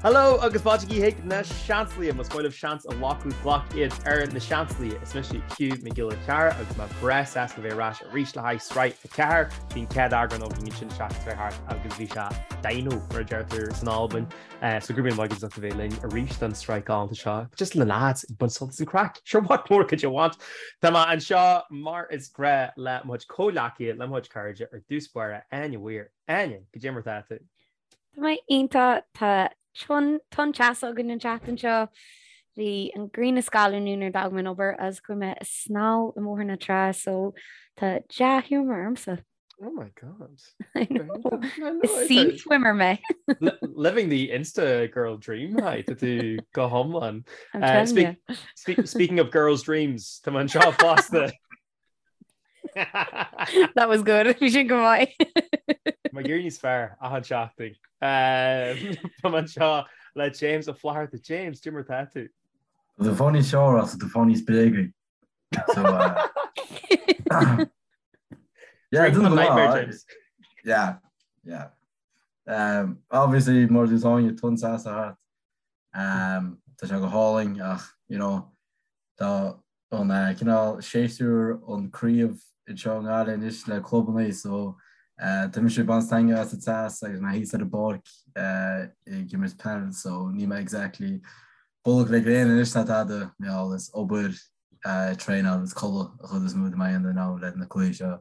Hello agus fáilte chuig na Seansálaithe, más maith libh seans a ghlacadh, glac iad ar na Seansálaithe. Is mise Hugh Mac Giolla Cheara agus mé breá sásta a bheith ar ais arís le haghaidh sraith 4. Bhí an chéad eagrán againn ansin an tseachtain seo thart agus bhí sé dino mar a deirtear san Albain. So go raibh míle maith agaibh as ucht a bheith linn arís don sraith galánta seo. Just le lads ag baint sult as an craic. Sure what more could you want? Tá mé anseo mar is gnách le mo chuid comhghleacaithe, le mo chuid cairde ar dtús báire, Áine Weir. Áine, goidé mar atá tú? Tá mé iontach, tá tonn teasa againn an tseachtain seo. Bhí an ghrian ag scalladh inniu nuair a d'fhág mé an obair agus chuaigh mé ag snámh i mBóthar na Trá so tá dea-ghiúmar ormsa. Oh my God. I know. Is sea swimmer mé. Living the Insta girl dream hi tá tú go hiomlán. I'm telling you. Speaking of girls dreams, tá mé anseo fosta. That was good. Bhí sin go maith. Tá mé ag éirí níos fearr achan seachtain. Tá mé anseo le James Ó Flatharta. James, goidé mar atá tú? Tá tú fáil níos fearr ach tá tú fáil níos bréagaí. So, yeah, Drink the nightmare, James. Yeah, yeah. Um, obviously, mar a dúirt Áine tonn teasa thart. Um, tá sé go hálainn ach, you know, tá an eh, cineál séasúr an craobh anseo i nGaillimh anois le clubanna so eh, tá mise ag baint taitneamh as an teas agus mé thíos ar an bpáirc eh, ag imirt peil so níl mé exactly bolg le gréin anois ná tada, mar gheall is obair, traenáil is codladh an chuid is mó de m'aon now le na cluichí seo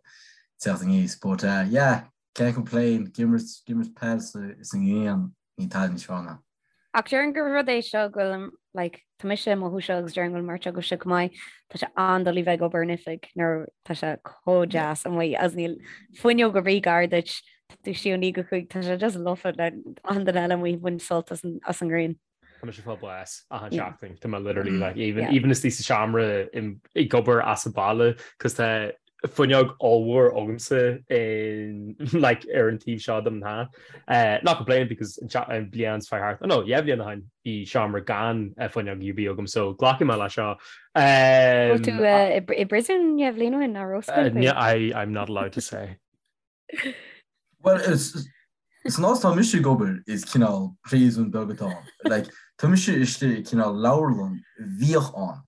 teacht aníos. But yeah, can't complain, ag imirt, ag imirt peil sa ngrian, níl tada níos fearr ná. Ach déarfainn gur rud é seo go bhfuil, like, tá mise ag mothú seo agus déarfainn go bhfuil an bheirt agaibhse chomh maith, tá sé an-doiligh bheith ag obair in oifig nuair tá sé chomh deas amuigh agus níl fuinneog ar bith gar duit, tá tú istigh ó 9 go 5, tá sé just lofa le achan duine eile amuigh ag baint sult as an ngrian. Tá mise ag fáil bás achan seachtain. Tá mé literally like even even istigh sa seomra ag obair as an baile cos tá fuinneog ollmhór agamsa in like ar an taobh seo dom ná. Uh, not complaining because an bliain seo thart. Oh no, yeah bhliain ó shin bhí seomra gan fuinneog ar bith agam so glacfaidh mé le seo. Um, tú uh, i bpríosún dhá bhliain ó shin ná raibh I I'm not allowed to say. Well, is san áit atá mise ag obair is cineál príosún beag atá ann. Like, tá mise istigh i cineál leabharlann a bhíodh ann.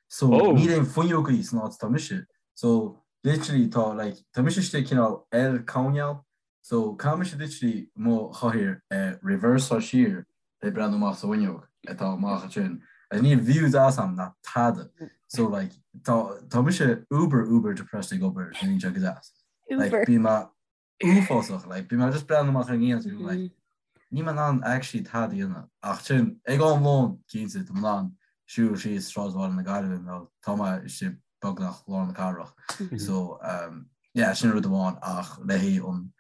So, oh. níl aon fuinneogaí san áit atá mise. So, literally tá, like, tá mise istigh i cineál L coirnéal. So, caithfidh mise literally mo chathaoir a reverse-áil siar le breathnú amach sa bhfuinneog atá amach ansin. Agus níl view deas agam ná tada. So, like, tá, tá mise uber, uber depressed ag obair, níl sé go deas. Like, Uber. bíonn mé uafásach, like, bíonn mé just breathnú amach ar an ngrian, mm like, níl mé in ann actually tada a dhéanamh. Ach sin, ag am lóin, cinnte, tá mé in ann siúl síos sráidbhaile na Gaillimhe nó tá mé istigh beagnach lár na cathrach. So, um, yeah, sin rud amháin ach le haghaidh an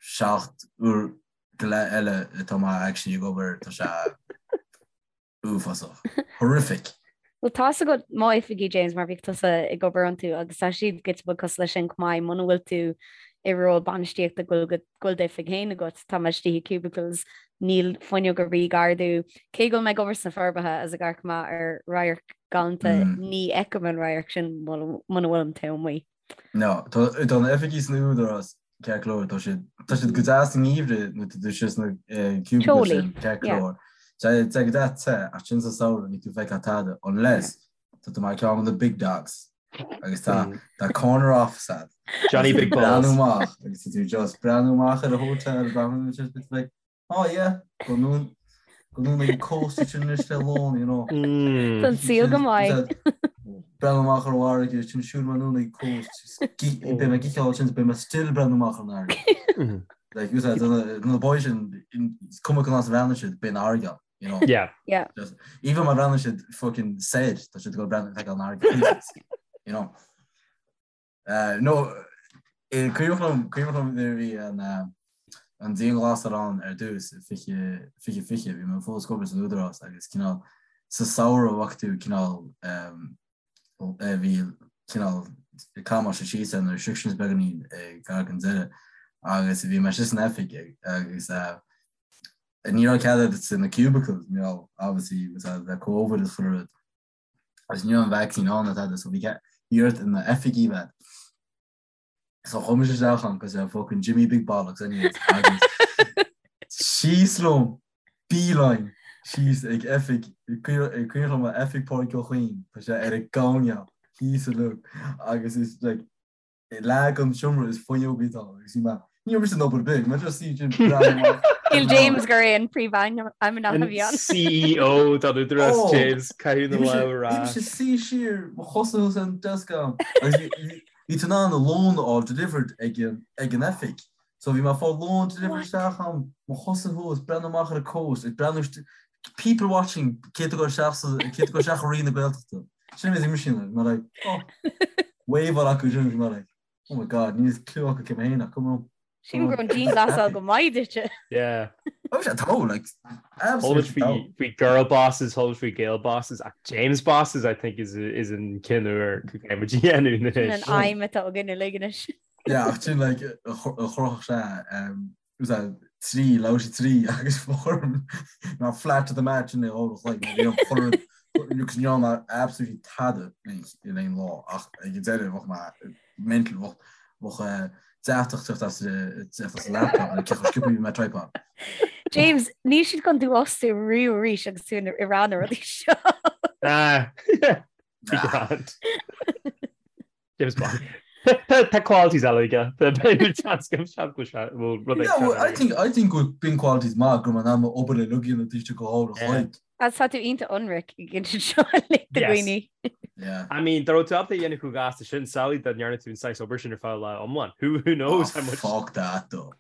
7 uair go leith eile atá mé actually ag obair, tá sé Uafásach. Horrific. Bhuel tá's agat m'oifigí, James, mar bhíodh tusa ag obair iontu agus tá siad giota beag cosúil leis sin chomh maith, muna bhfuil tú i ról bainistíochta go bhfuil go bhfuil d'oifig féin agat, tá mé istigh i cubicles, níl fuinneog ar bith gar domh. Cé go bhfuil mé ag obair sna Forbacha agus ag amharc amach ar radharc galánta, ní fheicim an radharc sin muna bhfuilim taobh amuigh. No, tá tá na oifigí san Údarás ceart go leor, tá siad tá siad go deas sa ngeimhreadh nuair tá tú istigh sna cubicles sin ceart go leor. Tá tá go deas te ach sin sa samhradh níl tú ag feiceáil tada unless tá tú mar ceann de na big dogs agus tá tá corner office agat. Johnny Big Balls. Breathnú amach agus tá tú just breathnú amach ar an hotel breathnú just like Oh yeah, go anonn go anonn ag an coast sin anois le lón, you know. Tá an saol go maith. Breathnú amach ar an bhfarraige, sin siúl anonn ag coast, beidh mé ag itheáil sin, beidh mé still breathnú amach ar an fharraige. Like, you said, na boys sin, is cuma cén áit a bhreathnaíonn siad, beidh an fharraige ann, you know. Yeah. Yeah. Just, even má bhreathnaíonn siad fucking soir, tá siad ag dul breathnú feiceáil an fharraige, you know. No, cuimhneach liom, cuimhneach liom nuair a bhí an an dianghlasáil ann ar dtús i 20, 2020, bhí mé fós ag obair san Údarás agus cineál sa samhradh bhfaca tú cineál bhí cineál camáiste síos ar na restrictions beagáinín gar don deireadh agus bhí mé istigh san oifig agus ní raibh cead agat sna cubicles, you know, obviously le Covid is chuile rud. agus ní raibh an vaccine ann ná tada so bhí bhí ort in oifigí bheith. So chuaigh mise isteach ann cos I'm fucking Jimmy Big Bollocks anyways agus síos liom beeline. síos ag oifig, ag cuimhin liom oifig Pádraig Ó Cuinn, tá sé ar an gcoirnéal thíos uilig agus is like leath den seomra is fuinneogaí atá ann agus bhí mé, ní raibh mise in obair ar bith, mé just suí sin breathnú amach. Shíl James gur é an príomhfheidhmeannach a bhí ann. CEO don Údarás oh, James caitheamh na lámh ar ais. Bhí mise suí siar, mo chosa thuas ar an desk agam agus bhí tú in ann lón a fháil delivered ag an oifig. So bhí mé ag fáil lón delivered isteach agam, mo chosa thuas, breathnú amach ar an coast, ag breathnú people watching cé atá ag dul isteach sa cé atá ag dul isteach i Roinn na Gaeltachta. Sin bhí mise like, mé like, oh, wave acu sin bhí mé like, oh my god, níl clue acu cé mé féin ach come on. Sílim go raibh an dianghlasáil go maith duitse. Yeah. Oh, sé tá like absolutely faoi faoi girl bosses, chuala faoi Gael bosses, ach James bosses I think is is an ceann úr go gcaithfidh muid a dhéanamh Sin an anois. aidhm atá againn uilig anois. Yeah, ach sin like a chruthaigh sé was that 3, labhair sé 3 agus form ná flat to the mat sin é ó like bhí an chur agus ní raibh mé absolutely tada in aon lá ach ag an deireadh bheadh mé mental bheadh bheadh deatach teacht as teacht as an laptop le cé chomh sciobtha bhí mé tripod. James, níl siad chun tú a fhostú riamh arís agus tú ag rá na rudaí seo. Ah, be grand. James Bond. Tá qualities eile aige. Seans go seans go bhfuil rud Yeah, well, I think I think go bíonn qualities maith go mbeidh an obair le lugaíonn an taoiseach go háirithe Yeah. chloig. Agus tá tú iontach ionraic ag insint seo le do Yes. dhaoine. Yeah. I mean, dá raibh tú ábalta a dhéanamh chomh gasta sin, samhlaigh dá ndearna tú an saghas obair sin ar feadh lá iomlán. Who, who knows Oh, how much... fuck that though.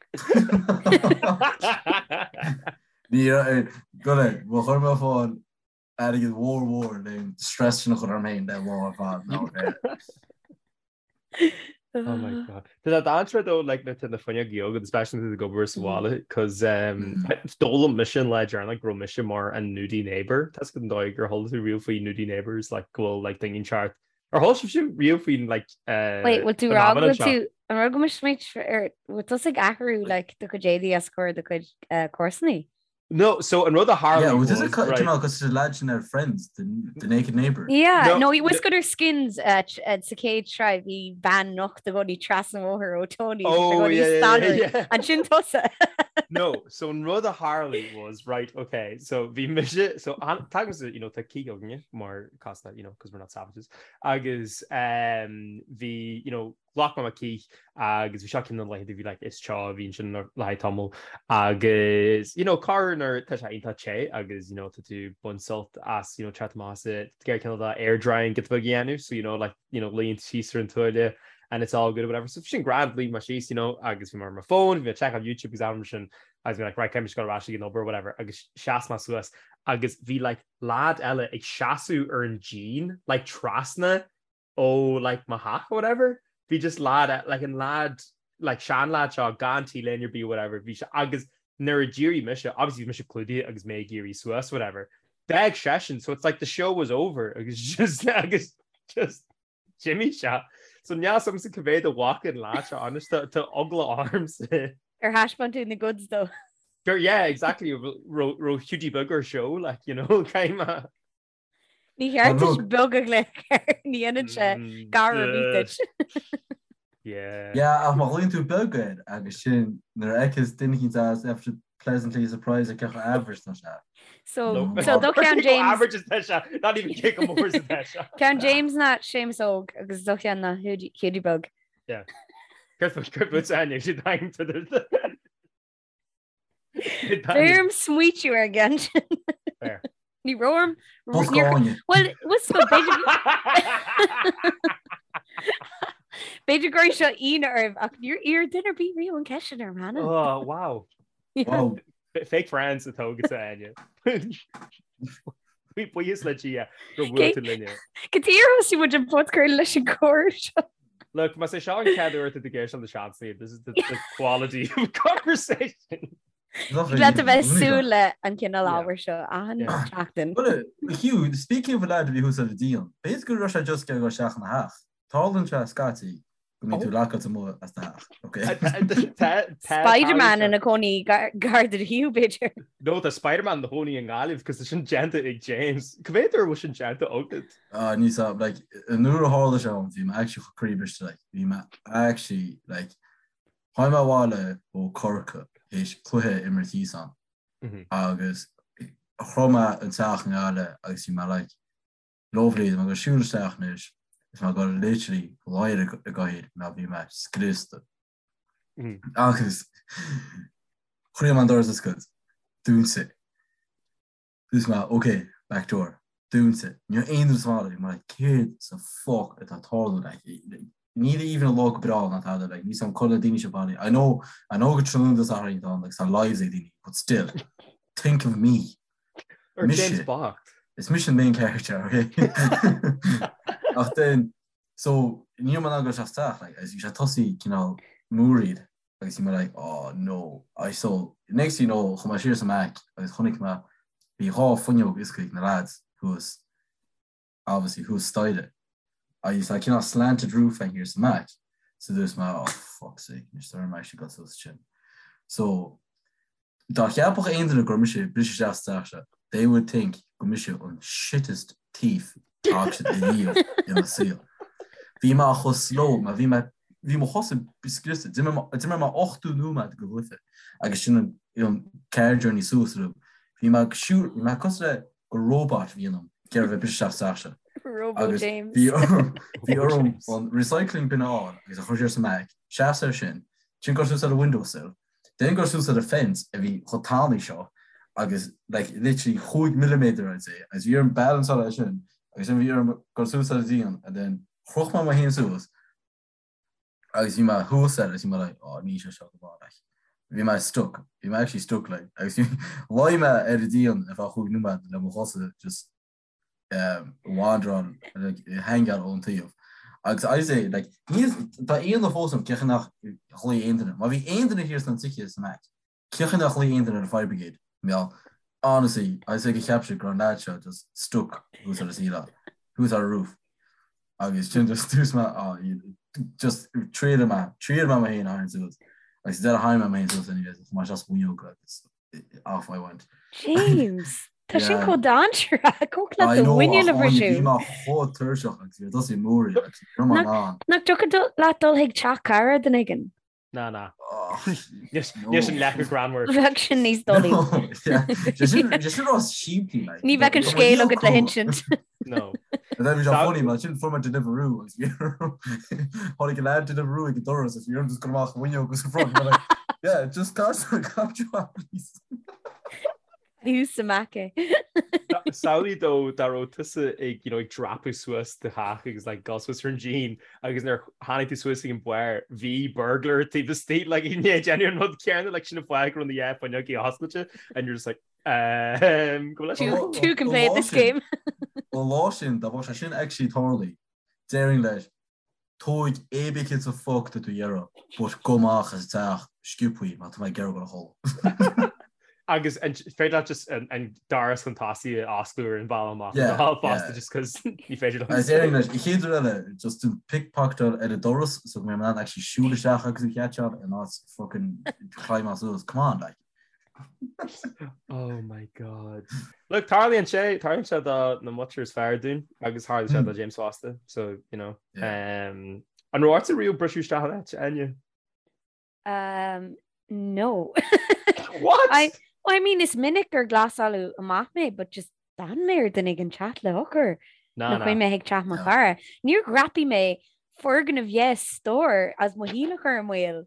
Ní go le, mo chuir mé fáil airgead mhór mhór le an stress sin a chur orm féin le lá ar fad ná bheith. Oh my god. Tá that answer though like na na fuinneogaí agat especially nuair atá tú ag obair sa bhaile cos um, d'fhoghlaim mise an lá deireanach go raibh mise mar an nudie neighbor. Tá an dóigh gur chuala tú riamh faoi nudie neighbors like go bhfuil like daoine inteacht. Ar chuala sibhse riamh faoin like uh, Wait, bhfuil tú rá go bhfuil tú an rud go mbeidh ar bhfuil tusa ag athrú like do chuid éadaí os comhair do chuid uh, comharsanaí? No, so an rud a tharla Yeah, well, this is right. cineál cosúil le lad sin ar Friends, the, the Naked Neighbour. Yeah, no, no was good ar Skins uh, uh, sa chéad sraith bhí bean nocht i gcónaí trasna an bhóthair ó Tony. Oh, yeah, yeah, yeah, yeah. An sin tusa. No, so an rud a tharla was, right, okay, so bhí mise, so tagaimse, you know, tá cith againne mar casta, you know, because we're not savages, agus um, bhí, you know, Ghlac mé mo cith agus bhí seo ceann de na laethanta a bhí like is teo a bhí ansin le haghaidh tamall agus you know corruair nuair tá sé iontach te agus you know tá tú ag baint sult as you know teacht amach as it ag iarraidh cineál de air drying giota beag a dhéanamh so you know like you know luíonn tú síos ar an tuáille and it's all good or whatever so bhí sin grand luigh mé síos you know agus bhí mé ar mo phone bhí mé ag checkáil YouTube agus am sin agus bhí like right caithfidh mise dul ar ais ag an obair or whatever agus sheas mé suas agus bhí like lad eile ag seasamh ar an díon like trasna ó like mo theach or whatever bhí just lad like an lad like sean lad seo gan T-léine ar bith or whatever bhí sé agus nuair a d'éirigh mise obviously bhí mise clúdaithe agus mé ag éirí suas whatever d'fhág seisean so it's like the show was over agus just agus just d'imigh sé so níl a fhios agamsa cá mhéad a bhfaca an lad seo honest tá tá eagla ormsa. Ar thaispeáin tú na goods dó? Gur yeah exactly raibh Hughie beag ar show like you know caithfidh mé Ní cheart duit beag a ghlaoch air, ní dhéanann sé gar ar bith duit. Yeah. Yeah, ach má ghlaonn tú beag air agus sin nuair a fheiceas duine eicínt as after pleasantly surprised ar cé chomh average tá sé. So, so do cheann James. Average is tá sé, not even cé chomh mór is atá sé. Ceann James ná Séamus Óg agus do cheann ná Hughie Beag. Yeah. Céard fút Áine, siad aim to the. Bhí orm smaoitiú ar an gceann sin. Fair. Ní raibh orm. Bosca Áine. Well, was go b'fhéidir B'fhéidir go raibh seo ionadh oraibh ach níor iarr duine ar bith riamh an ceist sin orm cheana. Oh, wow. Wow. Fake friends atá agat Áine. Buíochas le Dia gur bhuail tú linne. Cad chuige ar thosaigh muid an podchraoladh leis an gcomhrá seo. Look, más é seo an chéad uair atá tú ag éisteacht le Seansálaithe, this is the, the quality of conversation. Leat a bheith súil le an cineál ábhair seo achan seachtain. Well, Hugh, speaking of a lad a bhí thuas ar an díon, b'fhéidir go raibh sé just ag dul isteach ina theach. Tarlaíonn sé scaití go mbíonn tú lockáilte amuigh as do theach, ok? Spider-Man ina cónaí gar do Hugh, b'fhéidir. No, tá Spider-Man ina chónaí i nGaillimh, cos tá sin déanta ag James. Cá mhéad uair a bhfuil sin déanta agat? Ah, ní sa, like, an uair a tharla sé dom, bhí mé actually chomh croíbhriste, like, bhí mé actually, like, tháinig mé abhaile ó Corcaigh théis cluiche a imirt thíos ann, agus. Shroich mé an teach i nGaillimh agus bhí mé like, lovely, tá mé ag dul siúl isteach anois is mé ag dul literally luí ar an gcathaoir mar bhí mé scriosta. Agus chroith mé an doras oscailt, dúnta. Dúirt mé, ok, back door, dúnta. Ní raibh aon duine sa bhaile, bhí mé like, céard sa fuck atá ag tarlú, like, níl even an lá go breá ná tada, like, níl 's a'm cá bhfuil na daoine seo bailithe. I know, I know gur tráthnóna Dé Sathairn atá ann, like, tá lives ag daoine, but still, think of me. Or James bocht. Is mise an main character, ok? Ach then, so, ní raibh mé in ann dul isteach sa teach, like, agus bhí sé tosaí cineál múraíl. agus bhí mé like oh no I so next thing you know chuaigh mé siar sa mBeck agus chonaic mé bhí dhá fuinneog oscailte ag na lads thuas obviously thuas staighre agus tá cineál slanted roof ann thiar sa mBeck so dúirt mé oh fuck's sake anois tá orm actually dul suas sin so Dá cheapfadh aon duine gur mise ag briseadh isteach sa teach seo, they would think gur mise an shittest thief a fhaca siad ariamh ina saol. Bhí mé chomh slow, mar bhí mé, bhí mo chosa scriosta, d'imir mé 80 nóiméad de chluiche agus sin an, an car journey suas orm. Bhí mé ag siúl, bhí mé cosúil le gur robot a bhí ionam ag iarraidh bheith ag briseadh isteach sa teach seo. Robo Agus James. bhí orm, bhí orm an recycling bin a fháil agus a chur siar sa mBeck, seasamh air sin, sin dul suas ar an windowsill, Then dul suas ar an fence a bhí chomh tanaí seo agus like literally chúig milliméadar I'd say agus bhí orm balanceáil air sin agus then bhí orm dul suas ar an díon and then chroch mé mo fhéin suas agus bhí mé thuas air agus bhí mé like oh níl sé seo go maith like bhí mé stuck bhí mé actually stuck like agus luigh mé ar an díon ar feadh chúig nóiméad le mo chosa just wanderáil like hangáil ón taobh. Agus I say like níl tá ionadh fós orm cén chaoi nár ghlaoigh aon duine. Má bhí aon duine thiar sna tithe sa mBeck, cén chaoi nár ghlaoigh aon duine ar an fire brigade? Meall. Honestly, I say go cheap siad go raibh an lad seo just stuck thuas ar an ceileáil, thuas ar an roof. Agus sin just dúirt mé ah just triail mé, triail mé mo fhéin a tharraingt suas. Agus deireadh tharraing mé mo fhéin suas anyways, chuaigh mé isteach sa bhfuinneog agus off I went. James, tá sin chomh dainséarach, thiocfadh leat do mhuiníl a bhriseadh. Bhí mé chomh tuirseach agus bhí tosaí mór agus ní raibh mé in ann. Nach dtiocfadh leat dul chuig teach cara duine éigin? Ná, ná. Níl sin leath chomh greannmhar. Bheadh sin níos dóilí. Sé sin rud simplí. Ní bheadh an scéal agat le hinsint. No. Bhí sé funny mar sin fuair mé Deliveroo agus bhí tháinig an lad Deliveroo ag an doras agus bhí orm just dul amach an bhfuinneog agus an front like yeah just cas please. Thuas sa mBeck é. Samhlaigh dó dá raibh tusa ag you know ag dreapadh suas do theach agus like dul suas ar an díon agus nuair tháinig tú suas ag an barr bhí burglar taobh istigh like i ndiaidh déanamh an rud céanna like sin an fáth go raibh na dhá fuinneog oscailte and you're just like Two can play at this game. An lá sin, dá mbeadh sé sin actually tarlaithe, déarfainn leis, tóig pé ar bith céard sa fuck tá tú a iarraidh, but gabh amach as an teach sciobthaí mar tá mé ag iarraidh dul a chodladh. Agus an féidir leat just an doras chun tosaigh a osclú ar an bhealach amach yeah, fosta just cos ní féidir liom. Agus déarfainn leis, an chéad rud eile, just to pickpocketáil ar an doras so go mbeidh mé in ann actually siúl isteach agus a chatseáil in áit fucking climb suas, come on like. Oh my God. Look, tarlaíonn sé, tarlaíonn sé do na muintir is fearr dúinn agus tharla sé do James fosta, so, you know. Um, an raibh ortsa riamh briseadh isteach in áit, Áine? Um, no. What? I, well, I mean, is minic gur glasáladh amach mé, but just d'fhan mé ar duine éigin teacht le heochair. Na, Nó chuaigh mé chuig teach mo chara. Níor dhreapaigh mé foirgneamh yes stór as mo shaol a chur i mbaol.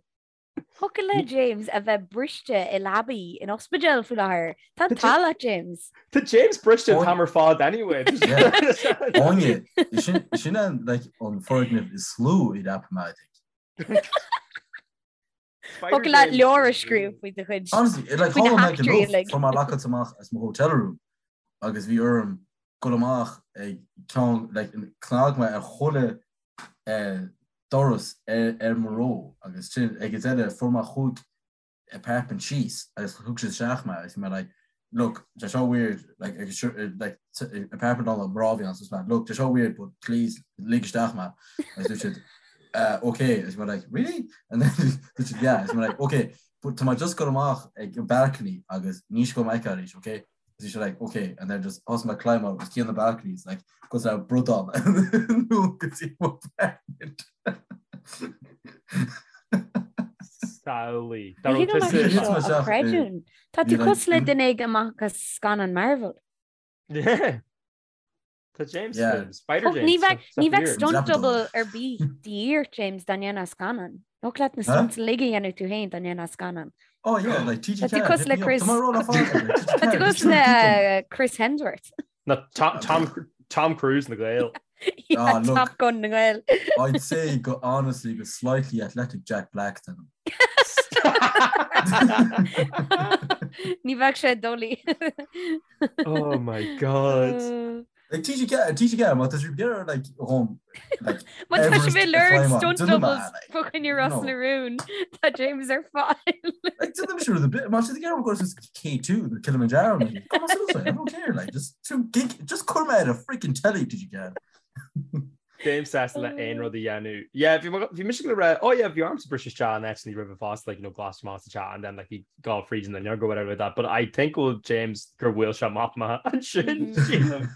Thiocfadh le James a bheith briste i leabaí in ospidéal faoi láthair. Tá an t-ádh leat, James. Tá James briste an t-am ar fad anyway. Áine, sin an like an foirgneamh is lú a dhreapaigh mé, I think. Thiocfadh leat leabhar a scríobh faoi do chuid. Honestly, like Faoi na tharla mé go heachtraí luath, uilig. fuair mé locked amach as mo hotel room agus bhí orm dul amach ag ceann like chnag mé ar chuile doras ar mo row agus sin ag an deireadh fuair mé chúig apartment síos agus thug siad isteach mé agus bhí mé like look tá seo weird like agus like apartment ann mná a bhí ann so mé look tá seo weird but please lig isteach mé agus dúirt siad uh, okay agus bhí mé like really and then dúirt siad yeah agus bhí mé like okay but tá mé just ag dul amach ag an balcony agus ní seo mé arís okay Bhí sé like ok and then just thosaigh mé ag climb out os cionn na balconies like cosúil le bradán nó go dtí mo apartment. Samhlaigh. Ní thig liom é seo a chreidiúint. Tá tú cosúil le duine éigin amach as scannán Marvel. Yeah. Tá James Spider James. Ní bheadh ní bheadh stunt double ar bith de dhíth ort James dá ndéanfá scannán. Thiocfadh leat na stunts uilig a dhéanamh tú féin dá ndéanfá scannán. Oh yeah, like TG Tá tú cosúil le Chris Tá tú cosúil le Chris Hemsworth. Na Tom Tom Tom Cruise na nGael. Yeah, Ah, look. Top Gun na nGael. I'd say go honestly go slightly athletic Jack Black then. Ní bheadh sé doiligh. Oh my God. Like TG TG má tá sibh ag iarraidh like dhom like Má tá sibh Everest ag lorg a climb stunt déanfaidh mé, doubles like, fá choinne Ros no. na Rún, tá James ar fáil. Like déanfaidh mise rud ar bith má tá sibh ag iarraidh dul suas K2 nó Kilimanjaro like, come on suas I don't care like just to gig just cuir mé ar a freaking telly TG James sásta le aon rud a dhéanamh. Yeah, bhí bhí mise le rá, oh yeah, bhí ormsa briseadh isteach in áit roimhe fosta, like, you know, glas amach sa teach and then like bhí gá fríd an fhuinneog or whatever like that. But I think go bhfuil James gur bhuail sé amach mé ansin, sílim.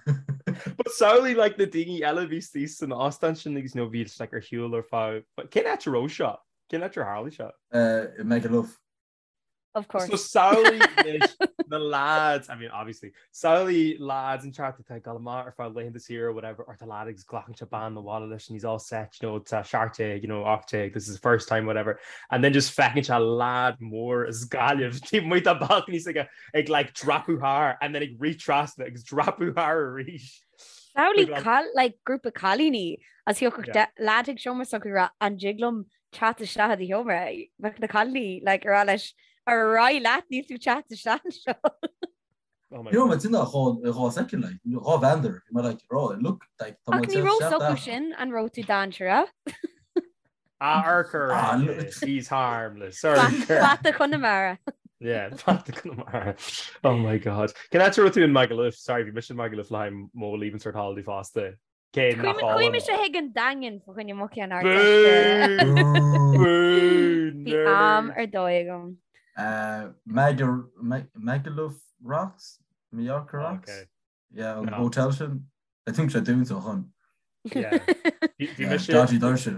But samhlaigh like na daoine eile a bhí istigh san óstán sin agus you know, bhí like ar shiúl ar feadh cén áit a raibh seo? Cén áit ar tharla seo? Uh, Magaluf. Of course. So samhlaigh anois na lads, I mean obviously, samhlaigh lads inteacht atá ag dul amach ar feadh laethanta saoire or whatever, or tá lad agus glacann sé bean abhaile leis and he's all set, you know, tá 17, you know, 18, this is the first time, whatever, and then just feiceann sé lad mór as Gaillimh taobh amuigh dá balcony s'aige ag like dreapadh thar and then ag rith trasna agus dreapadh thar arís. Samhlaigh cal like grúpa cailíní agus thiocfadh yeah. lad chuig seomra s'acu ag rá an dtig liom teacht isteach i do sheomra, bheadh na cailíní like ag rá leis ar aghaidh leat níl tú teacht isteach anseo. Bhí mé tinn dhá dhá second like dhá bheander bhí mé like rá look like tá Ach ní raibh s'acu sin an raibh tú dainséarach. Ah urchar ah, he's harmless. Urchar. Fata Chonamara. Yeah, Fata Chonamara. Oh my god. Cén áit a raibh tú in Magaluf? Sorry, bhí mise in Magaluf le haghaidh mo leaving cert holiday fosta. Cé nach álainn. Chuaigh mise chuig an Daingean fá choinne mo cheann Ardteiste. Bhí am ar dóigh agam. Magaluf Rocks? Mallorca Rocks? Yeah, an hotel sin. I think sé dúnta ó shin. Yeah. Bhí mise. Dodgy doirse.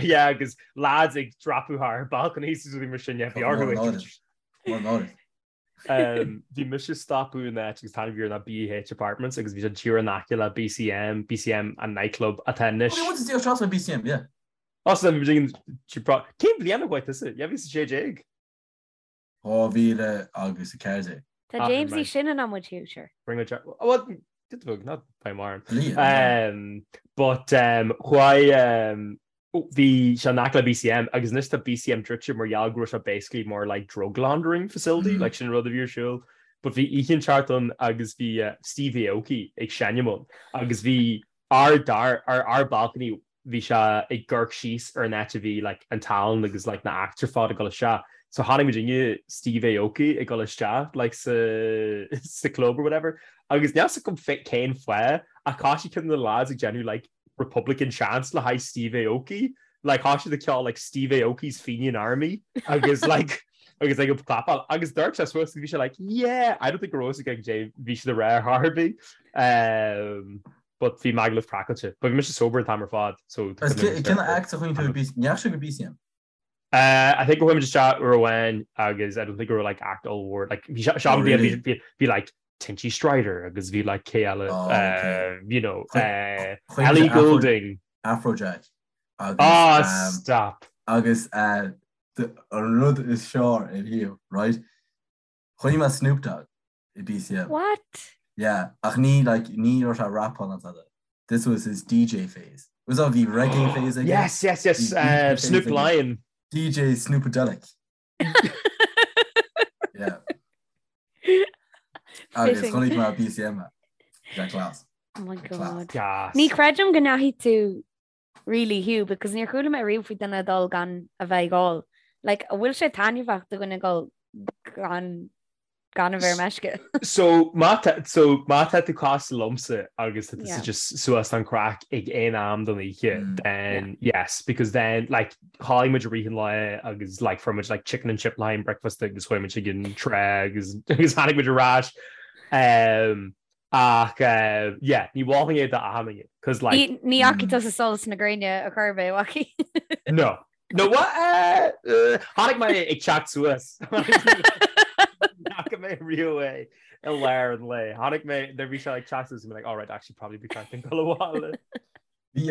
Yeah, agus lads ag dreapadh thar balconies is rudaí mar sin, yeah, bhí orthu ag. Bhí mise ag stopadh in áit agus an t-ainm a bhí air ná BH Apartments agus bhí sé díreach in aice le BCM, BCM an nightclub atá anois. Oh, bhí muid trasna BCM, yeah. Oh, so bhí muid Cén bhliain a chuaigh tusa? Yeah, bhí 16. 2014. Tá James níos sine ná muid Hugh, sure. Bring a Well, did bug, not by mar. But chuaigh Bhí sé in aice le BCM agus anois tá BCM druidte mar gheall go raibh sé basically mar like drug laundering facility, like sin an rud a bhí ar siúl. But bhí oíche inteacht ann agus bhí Steve Aoki ag seinm ann agus bhí ár dar, ár, ár balcony, bhí sé ag amharc síos ar an áit a bhí like an tallann agus like na acts ar fad ag dul isteach. So chonaic muidinne Steve Aoki ag dul isteach like sa, sa club or whatever agus níl 'fhios agam cén fáth ach thosaigh ceann de na lads ag déanamh like Republican chants le haghaidh Steve Aoki, like thosaigh siad ag ceol like Steve Aoki's Fenian Army agus like agus like ag clapáil agus d'amharc sé suas agus bhí sé like yeah I don't think go raibh a fhios aige caidé bhí siad ag rá ar chor ar bith um, but bhí Magaluf craiceáilte but bhí mise sober an t-am ar fad so Agus cén act a chuaigh tú i BCM? Ní dheachaigh sibh go BCM? Uh, I think go chuaigh muid isteach uair amháin agus I don't think go raibh like act ollmhór like bhí se- oh, really? bhí bhí like Tinchy Stryder agus bhí like cé eile oh, okay. uh, you know uh, Ellie Goulding Afrojack agus ah um, stop agus uh, an rud is fearr in here right Chonaic mé Snoop Dogg i BCM What? Yeah ach ní like ní raibh sé rapáil ná tada This was his DJ phase. Was that bhí reggae phase aige? Yes, yes, yes. Uh, Snoop Lion. DJ Snoopadelic. Yeah. Agus chonaic mé BCM Jack Class. Oh my god. Gas. Ní chreidim go ndeachaigh tú really Hugh because níor chuala mé riamh faoi duine ag dul gan a bheith ag ól. Like, an bhfuil sé taitneamhach do dhuine dul gan gan a bheith ar meisce? So má tá so má tá tú cosúil liomsa agus tá tusa just suas don craic ag aon am den oíche mm. then yeah. yes because then like chodlaigh muid i rith an lae agus like fuair muid like chicken and chip lime breakfast agus chuaigh muid ag an trá agus agus tháinig muid ar ais um, Ach yeah, ní mholfainn é d'achan duine, 'cause like. Ní fhacaidh tusa solas na gréine ar chor ar bith, an bhfacaidh? No. No what? Chonaic mé ag teacht suas. Ní fhaca mé riamh é i lár an lae. Chonaic mé nuair bhí sé ag teacht suas bhí mé like, alright, actually probably be ceart dúinn dul abhaile. Bhí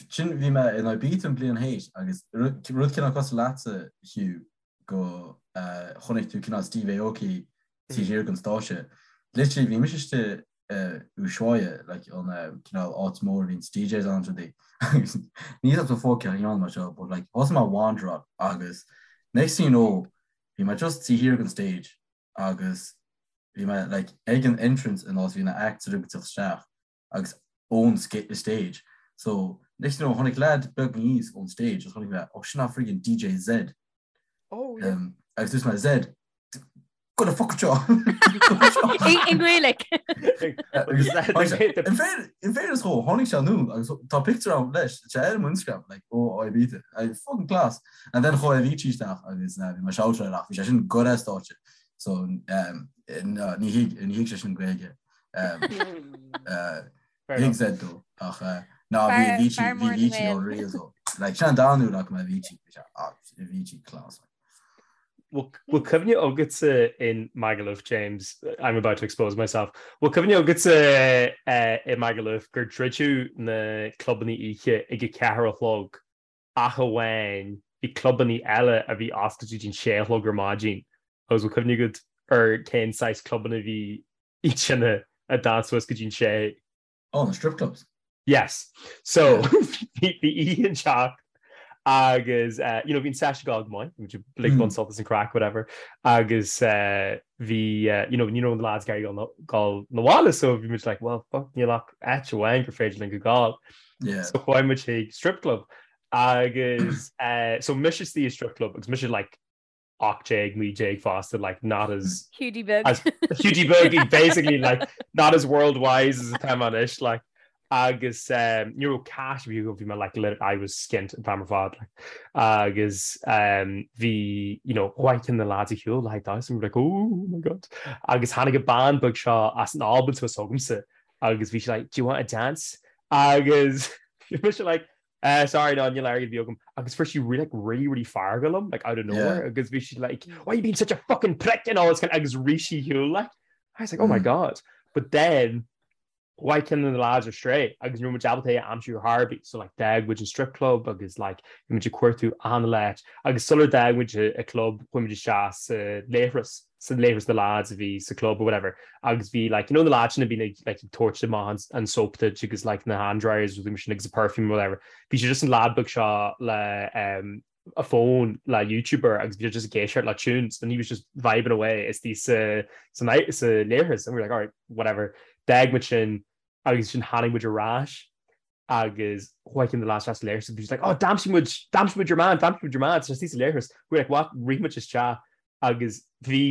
sin bhí mé in Ibiza an bliain théis agus rud cineál cosúil leatsa Hugh go chonaic tú cineál Steve Aoki taobh thiar den stáitse. Literally bhí mise istigh Ushuaia like an cineál áit mór a bhíonn DJs ann rudaí agus ní raibh fócach ann mar seo but like thosaigh mé ag wanderáil agus next thing you know bhí mé just taobh thiar den stage agus bhí mé like ag an entrance an áit bhí na acts ag teacht isteach agus ón stage so next thing you know tháinig lad beag aníos ón stage agus chonaic mé oh sin friggin DJ Zedd Oh yeah. Um, agus dúirt mé Zedd go the fuck seo. I nGaeilge. In fairness dhó, tháinig sé anonn agus tá picture ann leis, sé ar mo Instagram, like, ó Ibiza, I fucking class. And then chuaigh Avicii isteach agus uh, bhí mé shoutáil ach bhí sé sin go ar stáitse. So um, no, ní thuig ní thuig sé sin Gaeilge. Um, uh, Fair Thuig enough. Zedd dó ach uh, ná bhí Fear- Avicii fear bhí mór na Avicii nGael. unreal dó. Like, sin an dara huair a fhaca mé Avicii, bhí sé, ah, Avicii class. Like. Bhfuil cuimhne agatsa in Magaluf, James, I'm about to expose myself, bhfuil cuimhne agatsa i Magaluf gur druideadh na clubanna oíche ag a ceathair a chlog ach amháin bhí clubanna eile a bhí oscailte go dtí an sé a chlog ar maidin agus bhfuil cuimhne agat ar cén saghas clubanna a bhí iad sin a d'fhan suas go dtí an sé? Oh, na strip clubs. Yes. So bhí oíche ag teacht agus uh, you know, bhí an sesh ag gabháil go maith, bhí ag baint sult as an craic, whatever, agus uh, bhí uh, you know, ní raibh na lads ag iarraidh dul 'na bhaile so bhí muid like, well, fuck, níl ach áit amháin gur féidir linn go gabháil. Yeah. So chuaigh muid chuig strip club agus uh, so mise istigh i strip club agus mise like 18, 19 fosta, like not as Hiúdaí beag. as Hiúdaí beag basically like not as world wise as atá mé anois like agus um, ní raibh cash bhí bhí mé like lit I was skint an t-am ar fad like agus um, bhí you know chuaigh ceann de na lads ar shiúl le haghaidh damhsa and we were like oh my god agus tháinig an bean beag seo as an Albain suas chugamsa agus bhí sí like do you want a dance agus bhí mise like Eh, sorry, no, níl airgead ar bith agam. Agus fuair sí really, like, really, really feargach liom, like, out of nowhere, agus bhí sí like, why are you being such a fucking prick and all this kind of, agus rith sí ar shiúl, like. I was like, oh my God. But then, chuaigh ceann de na lads ar strae, agus ní raibh muid ábalta é a aimsiú ar chor ar bith. So, like, d'fhág muid an strip club agus, like, bhí muid ag cuartú achan áit. Agus sular d'fhág muid an club, chuaigh muid isteach sa leithreas. sa leithreas na lads a bhí sa club or whatever agus bhí like you know na lads sin a bhíonn ag like ag tabhairt amach an, an soap duit agus like na hand dryers rudaí mar sin agus a perfume or whatever bhí sé just an lad beag seo le um, a phone le YouTube air agus bhí sé just ag éisteacht le tunes and he was just vibing away istigh sa sa sa leithreas and we were like alright whatever d'fhág muid sin agus sin tháinig muid ar ais agus chuaigh ceann de na lads isteach sa leithreas agus bhí siad like oh d'aimsigh muid d'aimsigh muid your man d'aimsigh muid your man tá sé istigh sa leithreas we were like what rith muid isteach agus bhí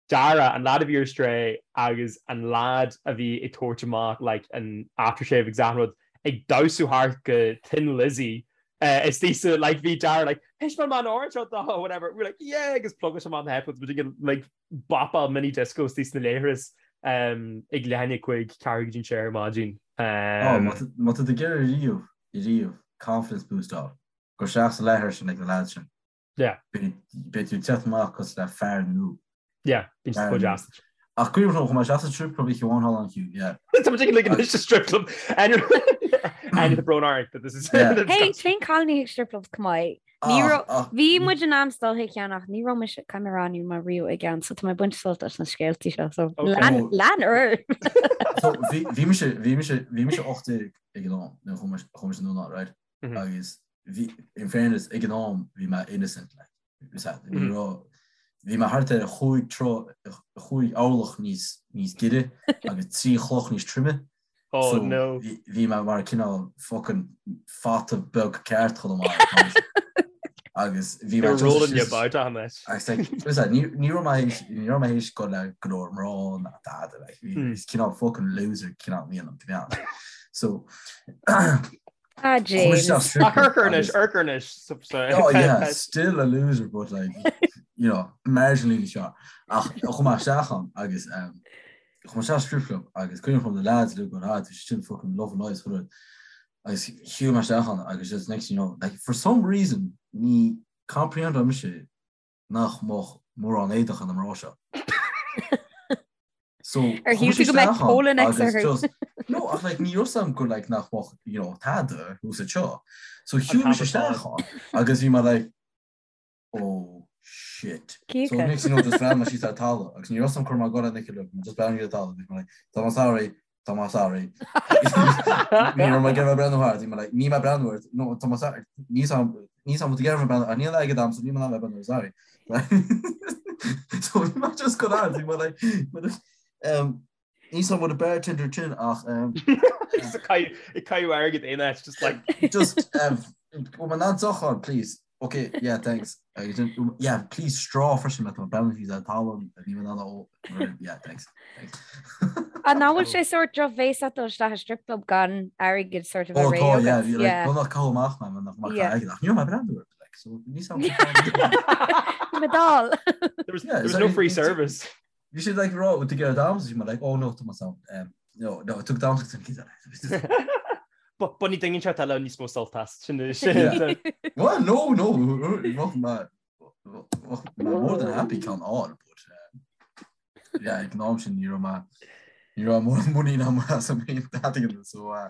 Dara an lad a bhí ar strae agus an lad a bhí ag tabhairt amach like an aftershave agus achan rud ag damhsú thart go Thin Lizzy uh, istigh sa like bhí Dara like Heis man man orange out the whatever we were like yeah agus plugáil sé amach na headphones muid ag like bopáil mini disco istigh sna leithris um, ag leath i ndiaidh a 5 ceathrú go dtí an sé ar maidin. Um, Má tá tú ag iarraidh riamh, riamh, confidence boost a fháil, gabh isteach sa leithreas sin ag na lads sin. Yeah. Beidh tú ag teacht amach cosúil le fear nua. Yeah, bíonn siad chomh deas. Ach cuimhin liom chuaigh mé isteach sa strip club oíche amháin thall ann Hugh, yeah. Tá muid ag ag anois sa strip club. And and the brón orainn that this is Yeah. Hey, téann cailíní chuig strip clubs chomh maith. Ní Ach, raibh- ach, Bhí muid in ainm is dul chuig ceann ach ní raibh mise caithfidh mé a rá ní raibh mé riamh i gceann so tá mé ag baint sult as na scéaltaí seo so Okay. lean Oh. lean ar. So, bhí bhí mise bhí mise bhí mise 18 ag an am nuair a chuaigh mise chuaigh mise anonn ann, right? Mhm. Agus bhí in fairness ag an am bhí mé innocent like. Bhí sa- ní Mhm. raibh bhí mé thart ar chúig troigh chúig orlach níos níos giorra agus trí chloch níos troime. Oh So, no. bhí bhí mé mar cineál fucking fata beag ceart chomh maith. Agus bhí mé You're just rolling your just- bout on it. Agus like, was that, ní ní raibh mé théis ní raibh mé théis dul le go leor mná ná dada like, bhí Hmm. bhí cineál fucking loser cineál mí an to be honest. So Ah, chuaigh James. isteach strip Ach club urcarnish, agus- urcarnish. So, so, Oh yeah, still a loser, but like, you know, marginally seo. Ach chuaigh mé isteach ann agus um, chuaigh mé isteach strip club agus cuimhin liom na lads uilig go ah, bhí siad sin fucking loving lives chuile rud. Agus shiúil mé isteach ann agus just next thing you know, like for some reason ní comprehend mise nach mbeadh mórán éadach ar na mná seo. So Ar shíl tú go mbeadh polo-necks orthu? No, ach like ní raibh 's a'm gur like nach mbeadh you know tada thuas anseo. So shiúil mise isteach ann agus bhí mé like oh shit. So next thing you know just bhreathnaigh mé síos ar talamh agus ní raibh 's a'm cur mé go le just breathnaigh ar talamh bhí mé like tá mé sorry tá mé sorry. Ní raibh mé ag iarraidh breathnú thart, bhí mé like níl mé ag breathnú ort, no tá mé sorry, níl 's a'm níl 's a'm ag iarraidh breathnú, níl airgead a'm so níl mé in ann breathnú, sorry. So bhí mé just go ard, bhí mé like um, níl 's a'm what a bartender sin ach um, Just ag caitheamh airgead aon áit, just like just um, bhfuil mé in ann deoch a fháil, please. Ok, yeah, thanks. Yeah, please straw freisin má tá breathnú síos ar talamh ní bheidh ó yeah, thanks. Thanks. An nach bhfuil sé sort drochbhéasach dul isteach i strip club gan airgead sort of a Oh, réidh tá, agat? yeah, bhí, like, Yeah. go nach caitheamh amach mé, nach mar Yeah. airgead, ach ní raibh mé ag breathnú ort, like, so ní sam. Bhí mé dall. There was, Yeah, there was is no that- free service. Bhí siad like rá, to get damsa, bhí mé like, oh no, tá mé sound. Um, no, no, tug damsa go cinn But ní dingin se eile níos mó sult as sin sin. Yeah. Well, no, no, bheadh mé bheadh mé more than happy ceann a fháil, but um, yeah, ag an am sin ní raibh mé ní raibh mórán muinín agam asam féin dadaigh so uh,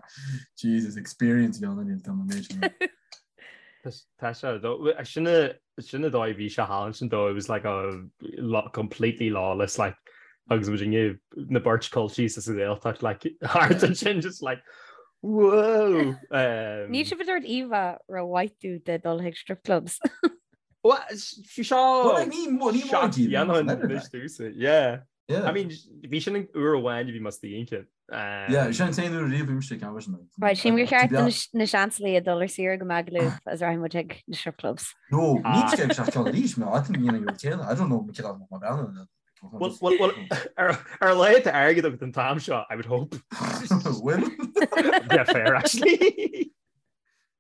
Jesus experience bhí ann tá mé méid sin. Tá sé though sin sin an dóigh bhí sé thall ansin though it was like a lot completely lawless like agus muid inniu na beirt culchies sa Ghaeltacht like thart ansin just like whoa um, Níl sibh ag tabhairt íomhá rómhaith dúinn de dul chuig strip clubs. Well, bhí seo Well, like, ní mó- ní mór díobh, dhéanfainn leather anois like. dúsa, yeah. Yeah. I mean, bhí sin an uair amháin a bhí mé istigh ansin. Yeah, sin an t-aon uair riamh bhí mise ceann freisin. Right, sílim gur cheart do na Seansálaithe dul ar saoire go Magaluf agus rachaidh muid chuig na strip clubs. No, ní sé ag seach ceann arís, mé, I think níl an céanna, I don't know me céanna mar bheanna. Well, well, well, ar ar a laghad tá airgead agat an t-am seo, I would hope. Bhfuil? Yeah, fair, actually.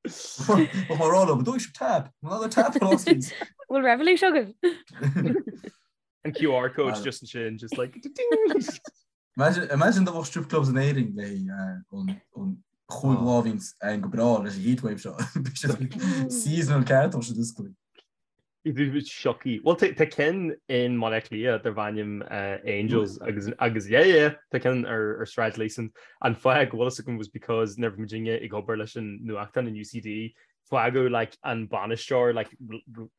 Bheadh mé ag rá leo, but dóigh sibh tab, another tab for us, please. Bhfuil Revolut agaibh? An QR code Ah. just ansin, just like ding. Imagine, imagine dá mbeadh strip clubs in Éirinn le an an chúig Oh. lá a bhíonns ann go breá leis an heatwave seo. Bhí siad seasonal ceart ó siad oscailte. Siocaí. Well tá tá ceann in mBaile Átha Cliath darb ainm eh, Angels agus agus yeah yeah tá ceann ar ar Sráid Leeson. An fáth go bhfuil fhios agam was because nuair a bhí muidinne ag obair leis an nuachtán in UCD fágadh like an bainisteoir like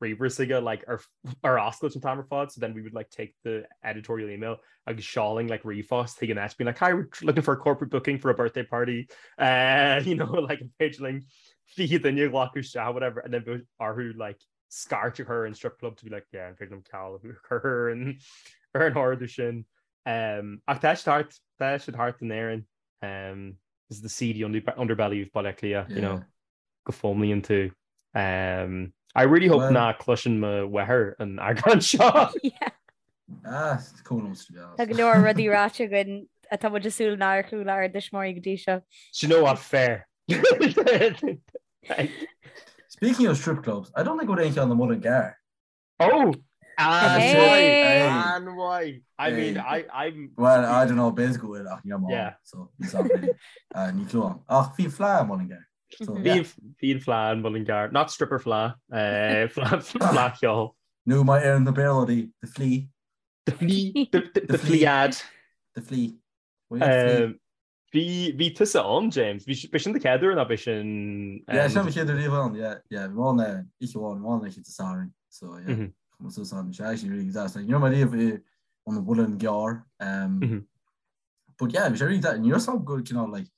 ríomhaire s'aige like ar ar oscailt an t-am ar fad so then we would like take the editorial email agus sheolfainn like ríomhphost chuig an áit being like hi we're looking for a corporate booking for a birthday party uh, you know like an féidir linn 20 duine a ghlacadh isteach whatever and then bheadh orthu like scairt a chur ar an strip club to be like yeah an féidir liom ceal a chur ar an ar an ordú sin um, ach tá siad thart tá siad thart in Éirinn um, this is the seedy under underbelly of Baile Átha Cliath you know go bhfoghlaimíonn tú. Um, I really hope well, ná cloiseann mo mháthair an eagrán seo. Ah, cuma liom to be honest. Tá go leor rudaí ráite againn atá muid ag súil nár chuala ár dtuismitheoirí go dtí seo. Do you know what? Fair. Speaking of strip clubs, I don't think go aon cheann i Mullingar. Oh! Hey! An-mhaith! I mean, I, I'm... Well, I don't know, b'fhéidir go bhfuil ach níl mé Yeah. so ní sam really. Uh, ní clue agam. Ach bhí fleadh i Mullingar. So, yeah. Bhí bhí an fleadh in Mullingar. Not stripper fleadh. Uh, fleadh fleadh cheoil. Nó mar a deireann na Béarlóirí, the flea. The flea. The, the, the The flea. flead. The flea. Well, yeah, the flea. Um, Bhí, bhí tusa ann, James. Bhí, b'é sin do chéad uair nó b'é sin... Yeah, sin mo chéad uair riamh ann, yeah, yeah. Bhí mé ann oíche amháin, bhí mé ann oíche Dé Sathairn, so yeah. Mm -hmm. Chuaigh mé suas ann, bhí sé actually really deas. Like, ní raibh mé riamh i an Mhuileann gCearr. Um, mm -hmm. But yeah, bhí sé really deas. Ní raibh a fhios agam go cineál like,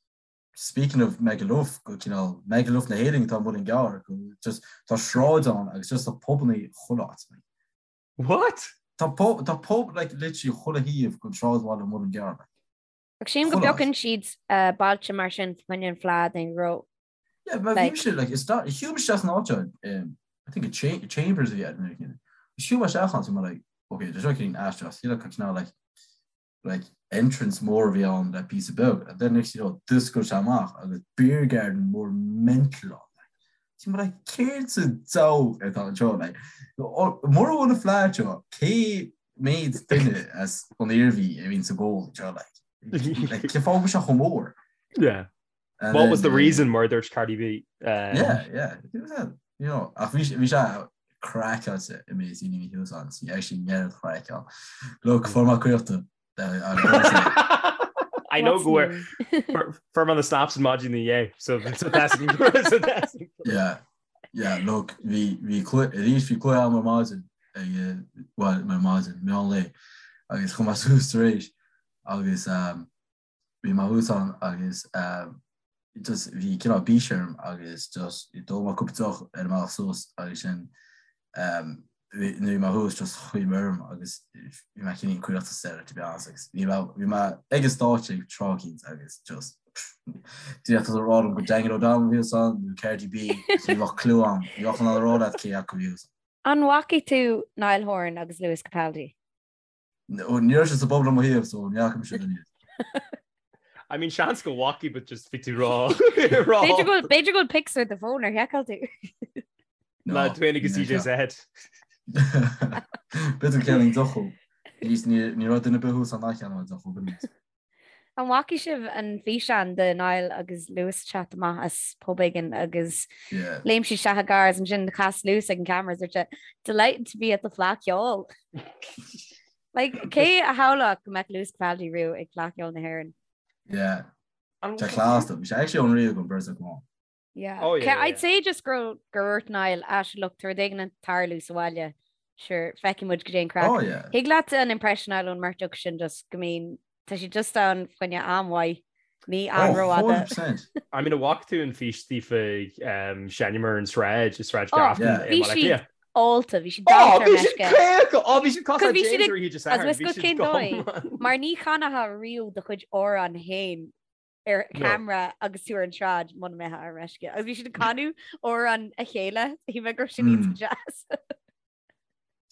speaking of Magaluf, go cineál Magaluf na hÉireann atá an Muileann gCearr, go just tá sráid ann agus just tá pubanna chuile áit. Like. What? Tá pub, tá pub like literally chuile thaobh den sráidbhaile an Mhuileann gCearr. Like. Ach sílim go bpiocann siad bailte mar sin fá choinne an fleadh den ghró. Yeah, but bhí mise like is that shiúil mise isteach san áit seo um, I think a cha Chambers a bhí air nuair a cinn. Shiúil mé isteach ann so mé like okay, there's no cinn aisteach, you look cineál like like entrance mór a bhí ann le píosa beag and then next you know d'oscail sé amach agus beer garden mór mental ann. Like, so mé like céard sa diabhal atá anseo like mura bhfuil an fleadh anseo cé méid duine as an Iarmhí a bhíonn ag gabháil anseo like. Like, cén fáth go bhfuil sé chomh mór? Yeah. And What was the reason mar a dúirt Cardi B? Yeah, yeah. You know, ach bhí sé craiceáilte i mé sin ní thuas an sí actually near craic ann. Look, fuair mé cuireadh I know go fuair mé na snaps an maidin inné so that's Yeah, yeah, look, bhí bhí arís bhí cluiche agam ar maidin ag well ar maidin meán lae agus chuaigh mé suas tar éis agus um, bhí mé thuas ann agus just bhí cineál bís orm agus just d'ól mé cúpla deoch ar an mbealach suas agus sin nuair bhí mé thuas just chuaigh mé orm agus bhí mé cineál caoch sa deireadh to be honest agus bhí mé bhí mé ag an stáitse ag tráth éicint agus just d'fhéadfá a rá liom gur Daniel O'Donnell a bhí thuas ann nó Cardi B so ní bheadh clue agam ní bheadh in ann a rá leat cé acu a bhí thuas ann. An bhfacaidh tú Niall Horan agus Lewis Capaldi? Ní raibh sé sa bpub le mo thaobh so ní fhaca mise duine iad. I mean seans go bhfacaidh but just bhí tú rá. B'fhéidir go b'fhéidir go bhfuil pics ar do phone ar sheiceáil tú. Le tú féin agus DJ Zed. B'fhéidir ceann deoch. Ní raibh duine ar bith thuas ann a cheannódh deoch ó b'in. An bhfacaidh sibh an físeán de Niall agus Lewis ag teacht amach as pub éigin agus léim siad isteach i gcarr agus ansin chas Lewis ag an camera agus dúirt sé Delighted to be at the Fleadh Cheoil. Like, cé a shamhlódh go mbeadh Lewis Capaldi riamh ag Fleadh Cheoil na hÉireann? Yeah. Tá class bhí sé actually unreal gon beirt acu ann. Yeah. Oh, yeah, yeah. I'd say just gur gur dhúirt Niall ah sure look tá rud éigin ag tarlú sa bhaile sure feicfidh muid goidé an craic. Oh, yeah. Thig leat an impression a fháil ón mbeirt acu sin just go mbíonn tá siad just ann fá choinne am mhaith ní am oh, rófhada. 100%. I mean an bhfaca tú an fís daofa ag seinm ar an sráid i Sráid oh, Grafton i Bhí siad ólta, bhí siad oh, bhí siad caoch! Oh, bhí siad cosúil le James ar Oíche Sathairn. Agus bhí siad go Mar ní chanfá riamh do chuid amhrán féin ar camera agus tú ar an tsráid muna mbeifeá ar meisce. Agus bhí siad ag canadh amhrán a chéile, shíl mé go raibh sin iontach deas.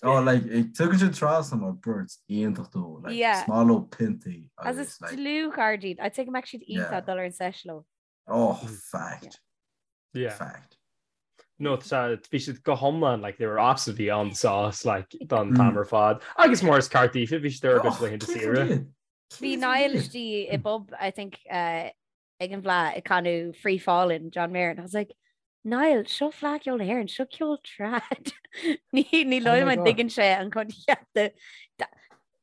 Oh, like, tugann siad trasna mar beirt iontach dó, like, Yeah. is maith leo piontaí Agus agus, is like, dlúthchairde iad. I'd say go mbeadh siad iontach Yeah. dul ar an sesh leo. oh, fact. Yeah. Fact. No, tá bhí siad go hiomlán like they were absolutely on the sauce like don t-am ar fad. Agus mar is ceart daofa bhí siad ar a gcuid Oh, laethanta cé saoire. iad? Bhí Niall istigh i bpub, I think, ag an bhFleadh ag canadh Free Fallin' John Mayer and I was like, Niall, seo Fleadh Cheoil na hÉireann, seo ceol trad. Ní ní Oh dóigh my liom an God. dtuigeann sé an coincheap de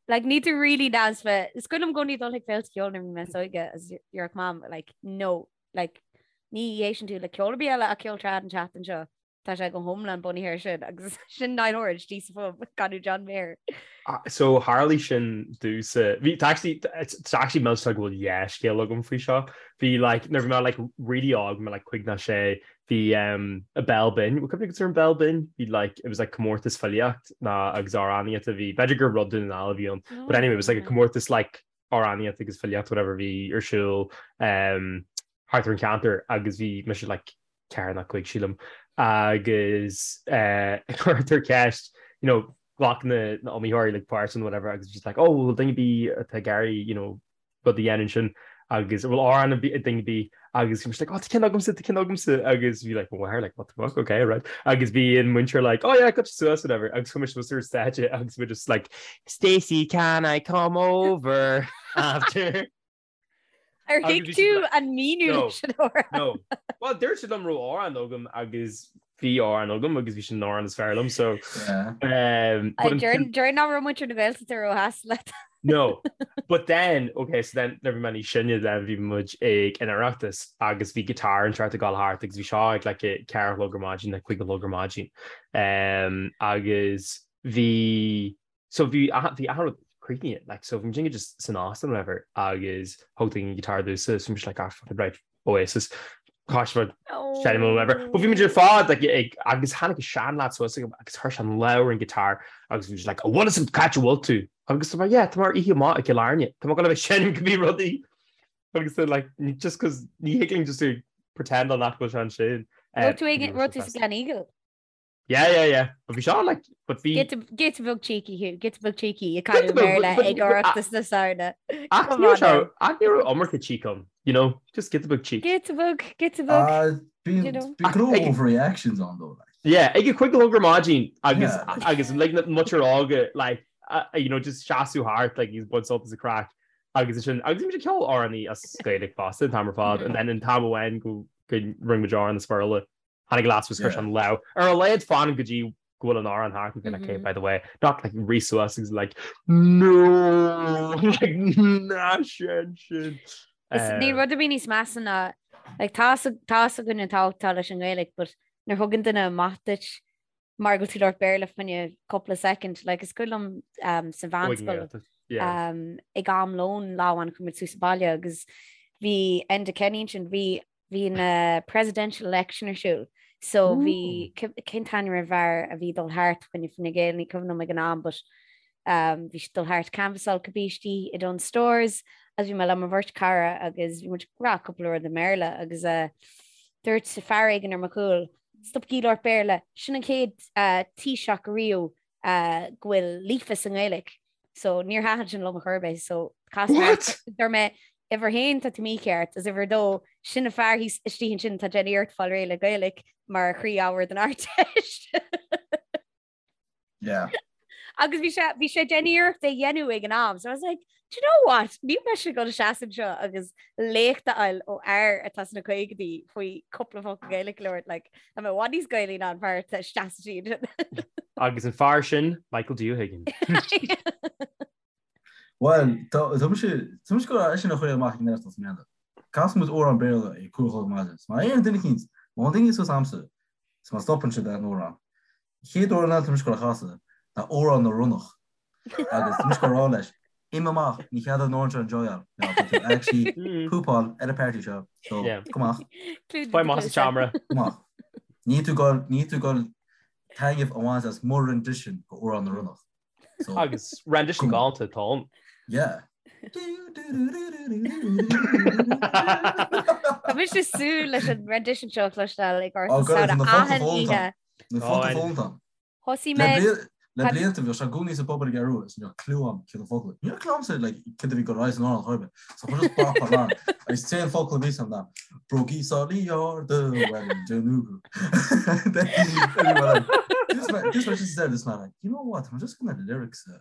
like ní tú really dance fe is cuimhin liom i gcónaí dul chuig féilte ceoil nuair a bhí mé níos óige agus déarfadh Mam like no like ní éisteann tú le ceol ar bith eile ach ceol trad an tseachtain seo. Tá sé go hiomlán bunaithe air sin agus sin Niall Horan istigh sa phub ag canadh John Mayer. So tharlaigh sin domhsa. Bhí tá actually it's actually millteach go bhfuil dhá scéal agam faoi seo. Bhí like nuair bhí mé like really óg, bhí mé like cúig nó sé, bhí um an Béal Binn, bhfuil cuimhne agat ar an Béal Binn? Bhí like it was like comórtas filíocht ná agus amhránaíocht a bhí b'fhéidir gur rud Dún na nGall a bhí ann. But anyway, it was like a comórtas like amhránaíocht agus filíocht whatever bhí ar siúl um thart ar an cheantar agus bhí mise like 4 nó 5 sílim agus cuirtear ceist you know ghlac na na iomaitheoirí like páirt in whatever agus just like oh bhfuil duine ar bith atá ag iarraidh you know rud a dhéanamh ansin agus bhfuil amhrán ag duine ar bith agus bhí mise like oh tá ceann agamsa tá ceann agamsa agus bhí like mo mháthair like what the fuck okay right agus bhí an múinteoir like oh yeah gabh suas whatever agus chuaigh mise suas ar stáitse agus bhí just like Stacey can I come over after Ar thuig tú an míniú leis an amhrán? No. Well, dúirt siad liom raibh amhrán agam agus bhí amhrán agam agus bhí sin an amhrán is fearr liom, so... Deir nach raibh muintir na Gaeltachta róshásta leat. No. But then, okay, so then nuair bhí mé níos sine then bhí muid ag an Oireachtas agus bhí guitar inteacht ag gabháil thart agus bhí seo ag like a 4 a chlog ar maidin, like 5 a chlog ar maidin. Um, agus bhí So bhí bhí achan rud críochnaithe, like, so bhí muid just san óstán whatever agus thug duine guitar domhsa so bhí mise like ah fuck it right Oasis Caithfidh seinm or whatever. But bhí muid ar fad like ag agus tháinig seanleaid suas agam agus chuir sé an lámh ar an guitar agus bhí sé like an bhfuil fhios agat c'áit a bhfuil tú? Agus tá mé yeah tá mé ar oíche amach i gCill Airne tá mé ag gabháil a bheith ag seinm cibé rudaí agus they're like just cause ní thig linn just to pretend nach bhfuil sé ansin. Raibh tú ag raibh tú sa Gleneagle? Yeah, yeah, yeah. But bhí seo like, but bhí... Giota beag cheeky thú, giota beag cheeky ag canadh Béarla ag Oireachtas na Samhna. Ach ní raibh ach ní raibh iomarca cheek ann, you know, just giota beag cheek. Giota beag, giota beag. Bíonn go leor overreactions ann though, like. Yeah, ag a cúig a chlog ar maidin agus agus like na muintir óga like, you know, just seasamh thart like ag baint sult as an craic. Agus sin agus bhí muid ag ceol amhránaí as Gaeilge fosta an t-am ar fad and then an t-am amháin go go rinne muid amhrán as Béarla tháinig leaid suas chuir sé an lámh ar a laghad fan go dtí go bhfuil an amhrán thart and been like, okay, by the way, not like rith suas agus like no like ná sin sin. Is níl rud ar bith níos measa ná like tá tá a fhios againn an tábhacht atá leis an nGaeilge but nuair thugann duine amach duit mar go bhfuil tú ag labhairt Béarla fá choinne cúpla soicind, like is cuimhin liom um, sa mheánscoil um, ag am lóin lá amháin chuaigh muid suas abhaile agus bhí Enda Kenny ansin, bhí bhí an uh, presidential election ar siúl. So bhí cén t-ainm ar an bhfear a bhí dul thart fá choinne Fine Gael ní cuimhin liom ag an am, but um, bhí sé dul thart canvassáil cibé istigh i Dunnes Stores agus bhí mé le mo bheirt cara agus bhí muid ag rá cúpla rud i mBéarla agus uh, dúirt fear éigin ar mo chúl Stopaigí labhairt Béarla, sin an chéad Taoiseach riamh go bhfuil líofa sa nGaeilge. So níor thaitin sin liom ar chor ar bith. So chas mé What? Dúirt mé uimhir a haon tá tú mícheart agus uimhir a dó sin an fear thíos istigh ansin atá ag déanamh iarracht fáil réidh le Gaeilge mar chroí-ábhar don Ardteist. Yeah. Agus bhí sé bhí sé ag déanamh iarracht é dhéanamh ag an am, so I was like, do you know what? Níl mise ag dul seasamh anseo agus léacht a fháil ó fhear atá sna caogaidí faoi cúpla focal Gaeilge a labhairt, like, tá mé i bhfad níos Gaelaí ná an fear atá isteach sa tír. Agus an fear sin, Michael D. O'Higgins. Well, tá tá mise tá mise go sin a chuir amach ag an Oireachtas i mbliana. Casfaidh muid amhrán Béarla ag 5 a chlog ar maidin. So má aon duine eicínt, má théann duine suas a'msa, is má stopann siad an amhrán. Chéad amhrán eile tá mise ag gabháil a chasadh ná Amhrán na Ronnach agus tá mise ag gabháil a rá leis, imigh amach, ní cead an amhrán seo enjoyáil, nó tá tú actually poopáil ar an party seo, so gabh amach. Faigh amach as an seomra. Gabh amach. Níl tú ag gabháil, níl tú ag gabháil taitneamh a bhaint as mo rendition go Amhrán na Ronnach. So, Agus rendition galánta atá ann. Yeah. Tá mise ag súil leis an rendition seo a chloisteáil ag Oireachtas na Samhna achan oíche. Na focla foghlamtha a'm. Thosaigh mé. Le blianta bhíodh sé i gcónaí sa bpub ar an gCeathrú Rua is ní raibh clue a'm céard na focla. Ní raibh clue a'msa like céard a bhí ag dul ar aghaidh san amhrán chor ar bith. So chuir just bap ar lán agus an t-aon focal a bhí a'm ná brógaí sálaí arda Wellington This man this man just said this man like you know what I'm just gonna lyrics a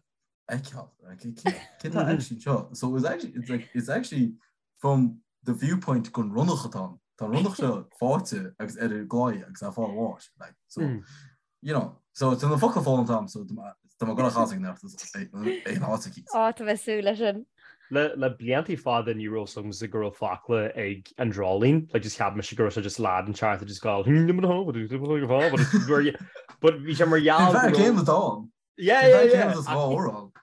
fheiceáil like cé tá actually seo so it was actually it's like it's actually from the viewpoint gon ronnach atá ann. Tá an ronnach seo fáite agus ar an gclaí agus á fáil bháis like so mm. you know so tá na focla foghlamtha a'm so tá mé ag gabháil a chasadh ag an áit aici. Á tá mé ag súil leis sin. Le le bliantaí fada ní raibh a fhios agamsa go raibh focla ag an dreoilín, like just cheap mise go raibh sé just lad inteacht just ag gabháil but bhí sé mar gheall go raibh céim atá ann. Yeah, yeah, yeah.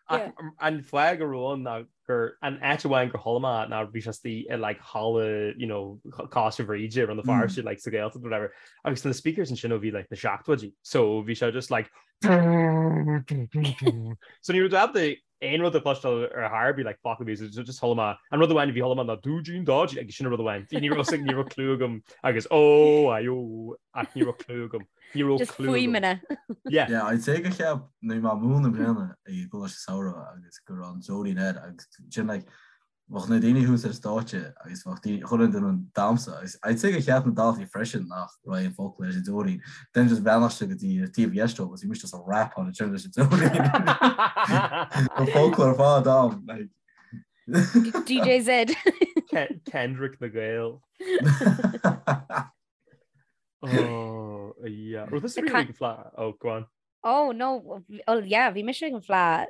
Ach an fáth go raibh ann ná gur an áit amháin gur chuala mé ná bhí sé istigh i like halla you know Coláiste Bhríde i Rann na Feirste like sa Ghaeltacht whatever agus na speakers ansin ó bhí like na seachtóidí so bhí sé just like so ní raibh ábalta aon rud a chloisteáil ar chor ar bith like focal bhí so just chuala mé an rud amháin a bhí chuala mé ná dúidín dáidín agus sin an rud amháin ní raibh ní raibh clue agam agus ó ai ó ach ní raibh clue agam. Ní raibh Just clue agam. fuaimeanna. Yeah. Yeah, I'd say gur cheap nuair bhí mé ag múineadh i mbliana ag an gcoláiste samhraidh agus go raibh an dreoilín air agus sin like bheadh na daoine thuas ar stáitse agus bheadh daoine chuile duine ag damhsa agus I'd say gur cheap na daltaí freisin nach raibh aon focal leis an dreoilín. Then just bheannacht go dtí ar taobh dheis dóibh agus bhí mise just ag rapáil ansin leis an dreoilín. An focal ar fad am like. DJ Z. Kendrick na Gael. Oh, yeah. Well, this is really ag an Fleadh. Oh, go on. Oh, no. Oh, yeah, bhí mise ag an Fleadh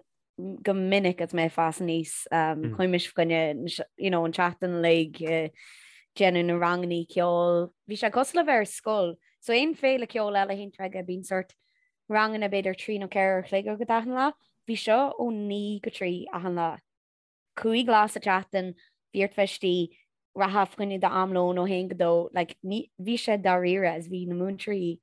go minic agus mé ag fás aníos. Um, mm. Chuaigh mise fá choinne, you know, an tseachtain uilig uh, déanamh na rangannaí ceoil. Bhí sé cosúil le bheith ar scoil. So aon féile ceoil eile a théann tú aige bíonn sort ranganna b'fhéidir 3 nó 4 uair a chloig agat achan lá. Bhí seo ó 9 go 3 achan lá. 5 lá sa tseachtain, bhí ort bheith istigh, rachfá fá choinne d'am lóin ó haon go dó, like, ní, bhí sé dáiríre is bhí na múinteoirí,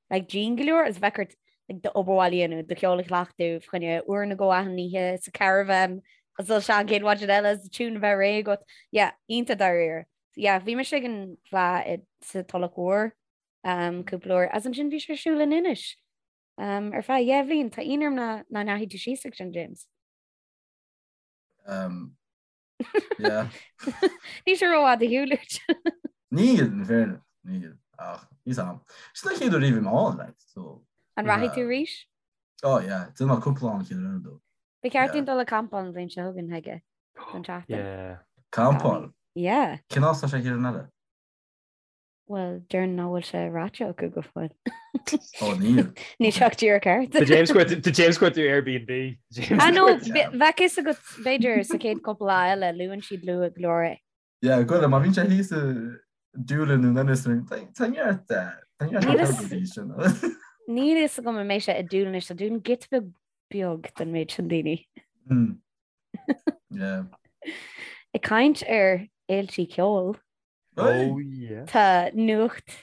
like, dian go leor is bheadh ort, like, d'obair bhaile a dhéanamh, do cheol a chleachtadh, fá choinne uair nó dhó achan oíche sa caravan, agus dul isteach an chéad mhaidin eile is tune a bheith réidh agat. Yeah, iontach dáiríre. Yeah, bhí mise ag an Fleadh i, sa Tulach Mhór, um, cúpla uair, agus ansin bhí sé ar siúl in Inis, um, ar feadh dheich bhliain. Tá ionadh orm nach ndeachaigh tú síos ag sin, James. Um, yeah. Níl sé rófhada ar shiúl uait. Níl, in fairness, níl. Ach, níl am. Sin an chéad uair riamh ann, like, so. An rachaidh tú arís? Oh, yeah. Déanfaidh mé cúpla an chéad uair dó. Ba cheart dúinn dul ag campáil an bhliain seo chugainn, chuige. Don tseachtain. Yeah. Campáil? Yeah. Cén áit atá sé thiar an eile? Bhuel, déarfainn nach bhfuil sé ráite acu go fóill. Ó, níl. Níl sé ach díreach thart. Tá James cuir tá James cuir tú Airbnb. James Ah no, cuir- be- bheadh fhios agat b'fhéidir sa chéad cúpla lá eile luann siad luath go leor é. Yeah, go má bhíonn sé thíos i Doolin nó Ennis tá neart tá neart Níl fhios- hotel sin. Níl fhios agam an mbeidh sé i Doolin anois, tá Doolin giota beag beag don méid sin daoine. Mm. Yeah. Ag caint ar fhéiltí ceoil, Oh yeah. tá nuacht.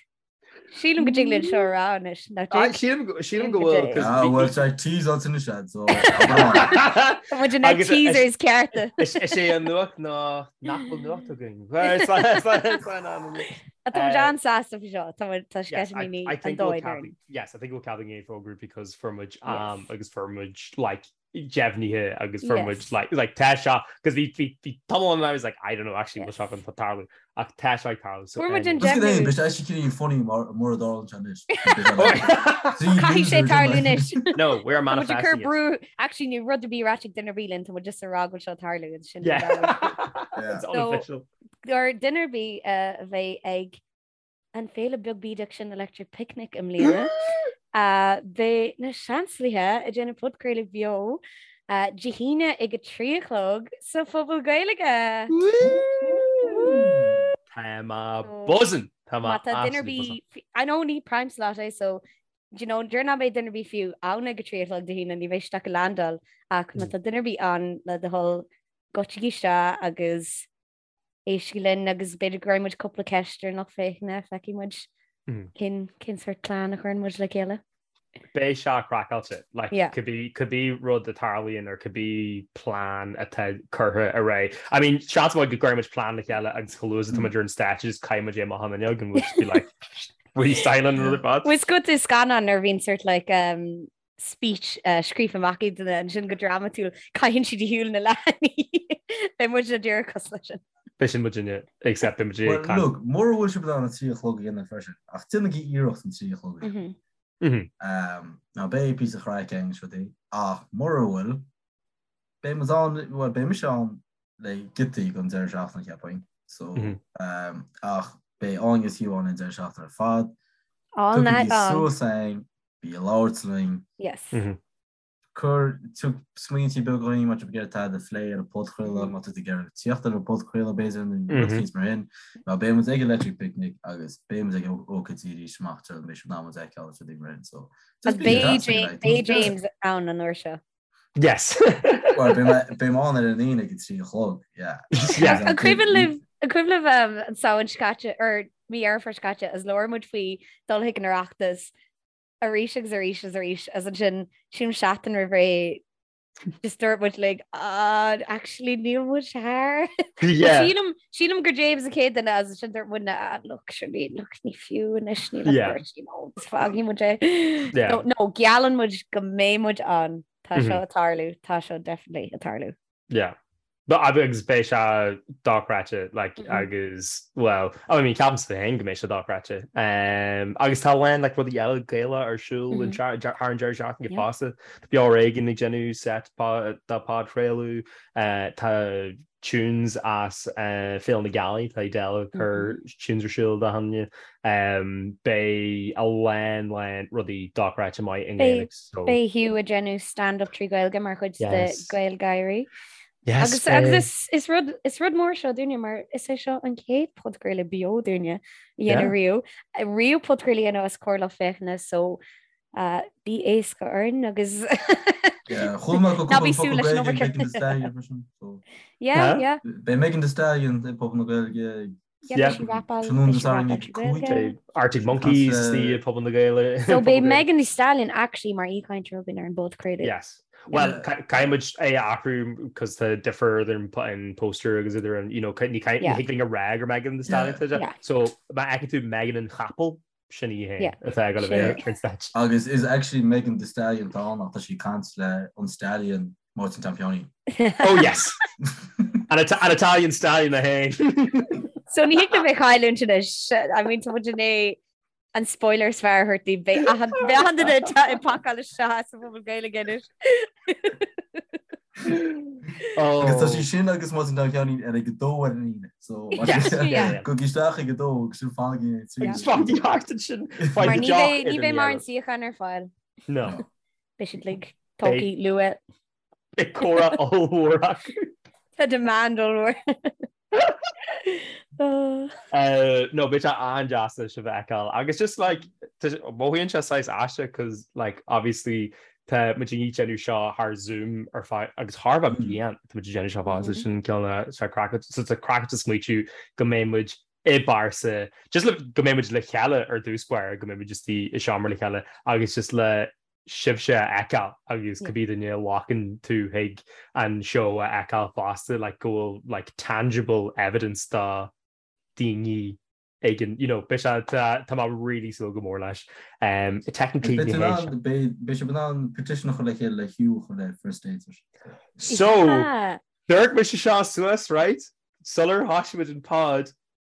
Sílim go dtig linn seo a rá anois, nach Ah, dtig? Sílim go- sílim go bhfuil Sílim go 'cause Ah, bhí- bhfuil sé teasáilte anois agat, so Tá muid na Agus- teasers cearta. Is is é an nuacht ná nach bhfuil nuacht againn. Well, it's like- it's like- it's like an- Tá muid Uh, an-sásta faoi seo, tá muid tá Yes, I, sceitimíní I an think we'll dóigh cead orainn. yes, I think we'll cead againn fógrú because fuair muid Yes. am agus fuair muid like deimhnithe agus fuair muid Yes. like like tá sé because bhí bhí bhí tamall ann I was like I don't know actually bhfuil sé Yes. chun tarlú ach tá sé ag tarlú so Fuair muid an anyway. Just deimhniú. Beidh sé actually cinneadh funny mar mura dtarlaíonn sé anois. Caithfidh sé tarlú anois. No, we're Tá muid ag cur manifesting it. brú actually níl rud ar bith ráite ag duine ar bith linn, tá muid just ag rá go bhfuil sé ag tarlú agus sin Yeah. Yeah. It's So- unofficial. Gur duine ar bith a bheidh ag an féile beag bídeach sin Electric Picnic i mbliana. Beidh na Seansálaithe ag déanamh podchraoladh beo Dé hAoine ag a 3 a chlog sa Phuball Gaeilge! Tá mé buzzing! Tá mé Má tá duine ar absolutely buzzing. bith, I know ní prime slot é so do you know, déarfainn nach mbeidh duine ar bith fiú ann ag a 3 a chlog Dé hAoine, ní bheidh siad ach ag landáil ach má tá duine ar bith ann le do thoil goitsigí isteach agus éistigí linn agus b'fhéidir go gcuirfidh muid cúpla ceist ar an lucht féachana, feicfidh muid cén cén sórt plean a chuireann muid le chéile. Beidh sé craiceáilte, like, Yeah. cibé cibé rud a tarlaíonn or cibé plean atá curtha ar aghaidh. I mean, seans maith go gcuirfidh muid plean le chéile agus chomh luath is atá muid ar an stáitse just caithfidh muid é amach an fhuinneog and we'll just be like, freestyling an rud ar fad. Bhfuil fhios agat i scannán nuair a bhíonn sort like um, speech scríofa amach ag duine ansin go drámatúil, caitheann siad de shiúl na leathanaí. Beidh muid díreach cosúil leis sin. Beidh sin muidinne, except beidh muid ag Well, caint. look, mura bhfuil sibh in ann an 3 a chlog a dhéanamh freisin, ach déanaigí iarracht an 3 a chlog a dhéanamh. Now, beidh píosa craic againn is rudaí, ach mura bhfuil, beidh muid ann, bhuel, beidh mise ann le giotaí don deireadh seachtaine, cheapfainn. So, ach beidh Áine is Hugh ann an deireadh seachtaine ar fad. All night Tugaigí long. suas againn, Bí ag labhairt linn. Yes. Cuir, tug smaointí beaga dhúinn má tá tú ag iarraidh tada a phlé ar an podchraoladh, má tá tú ag iarraidh tíocht ar an podchraoladh b'fhéidir nó rud éicint mar sin. Mar beidh muid ag Electric Picnic agus beidh muid ag ócáidí arís amach anseo beidh sibh in ann muid a fheiceáil agus rudaí mar sin. So, just Agus bí beidh deas James, like, beidh James ann an uair seo. Yes. Well, beidh mé beidh mé ann ar an Aoine ag a 3 a chlog, yeah. Yeah. An cuimhin libh an cuimhin libh um, an Samhain seo caite or mí Dheireadh Fómhair seo caite is labhair muid faoi dul chuig an Oireachtas arís agus arís agus arís agus ansin sílim seachtain roimh ré just dúirt muid like ah actually níl muid thar. Yeah. Sílim sílim gur James an chéad duine agus ansin dúirt muid ah look surely look ní fiú anois níl ach Yeah. beirt, you know, is fágfaidh muid é. Yeah. No, no, geallann muid go mbeidh muid ann. Tá seo Mhm. ag tarlú, tá seo definitely ag tarlú. Yeah. But agus beidh sé dochreidte like Mhm. agus well I mean ceapaimse féin go mbeidh sé dochreidte. Um, agus tá a lán like rudaí eile Gaelach ar siúl an Mhm. thar an deireadh seachtaine Yeah. fosta. Tá Beo Ar Éigean ag déanamh set dá podchraoladh uh, tá tunes as uh, Féile na Gealaí tá Edel ag cur tunes ar siúl do hanne. Um, beidh a lán lán rudaí dochreidte maith i nGaeilge so Beidh Hugh ag déanamh stand-up trí Ghaeilge mar chuid de Yes. Gaelgáirí. Yes, Agus beidh. agus is, is, rud, is rud mór seo dúinne mar is é seo an chéad podchraoladh beo dúinne a dhéanamh Yeah. riamh. Riamh podchraoladh a dhéanamh os comhair lucht féachana so uh, bí éasca orainn agus Yeah, chuala mé go Ná bí cúpla súil focal leis an Gaeilge ag obair. Megan Thee Stallion freisin, so Yeah, Huh? yeah. Beidh Megan Thee Stallion ag Puball na Gaeilge Yeah, Yeah. beidh sí rapáil, Tráthnóna beidh Dé sí Sathairn rapáil ag trí 5. Ghaeilge. Beidh Arctic Monkeys As, i Puball na Gaeilge. So Puball beidh na Gaeilge. Megan Thee Stallion actually mar aoichainteoir againn ar an bpodchraoladh. Yes. Well, Yeah. caithfidh muid é a athrú cos tá difear idir an an poster agus idir an, you know, ní Yeah. ní thig linn a rá gur Megan Thee Stallion Yeah. tá sé. Yeah. So má fheiceann tú Megan an Chapel, sin í féin Yeah. atá ag dul a Sin bheith í. ar an stáitse. Agus is actually Megan Thee Stallion atá ann ach tá sí ag caint le an Stallion Máirtín Tom Sheáinín. Oh yes! An Ita- an Italian Stallion é féin. So ní thig linn é a chailliúint anois. I mean, tá muid i ndiaidh an spoiler is fearr a thabhairt daoibh. Beidh achan beidh achan duine ag pacáil isteach sa Phuball Gaeilge anois. Agus tá sé sin agus má tá ceann ar ag a dó ar an Aoine. So gabhaigí isteach ag a dó agus sin fanaigí ag trí. Fanaigí thart ansin. Mar ní bheidh ní bheidh mórán suíochán ar fáil. No. Beidh siad like tógtha luath. Beidh comhrá ollmhór acu. Tá demand ollmhór. No, beidh sé an-deas sibh a fheiceáil. Agus just like, mothaíonn sé saghas aisteach cos like obviously tá muid ag déanamh seo thar Zoom ar feadh agus thar bheith bliain tá muid ag déanamh seo fá sin cineál sé craiceáilte so tá craiceáilte smaoitiú go mbeidh muid i bpearsa just le go mbeidh muid le chéile ar dtús báire go mbeidh muid just i seomra le chéile agus just le sibhse a fheiceáil agus cibé duine a ghlacann tú chuig an seó a fheiceáil fosta like go bhfuil like tangible evidence do daoine éigin you know beidh sé tá tá mé really súil go mór leis. Um, technically ní hé seo. Beidh sibh in ann petition a chur le chéile le Hugh a chur le first dates. So, dúirt mise seo suas, right? Sular thosaigh muid an pod,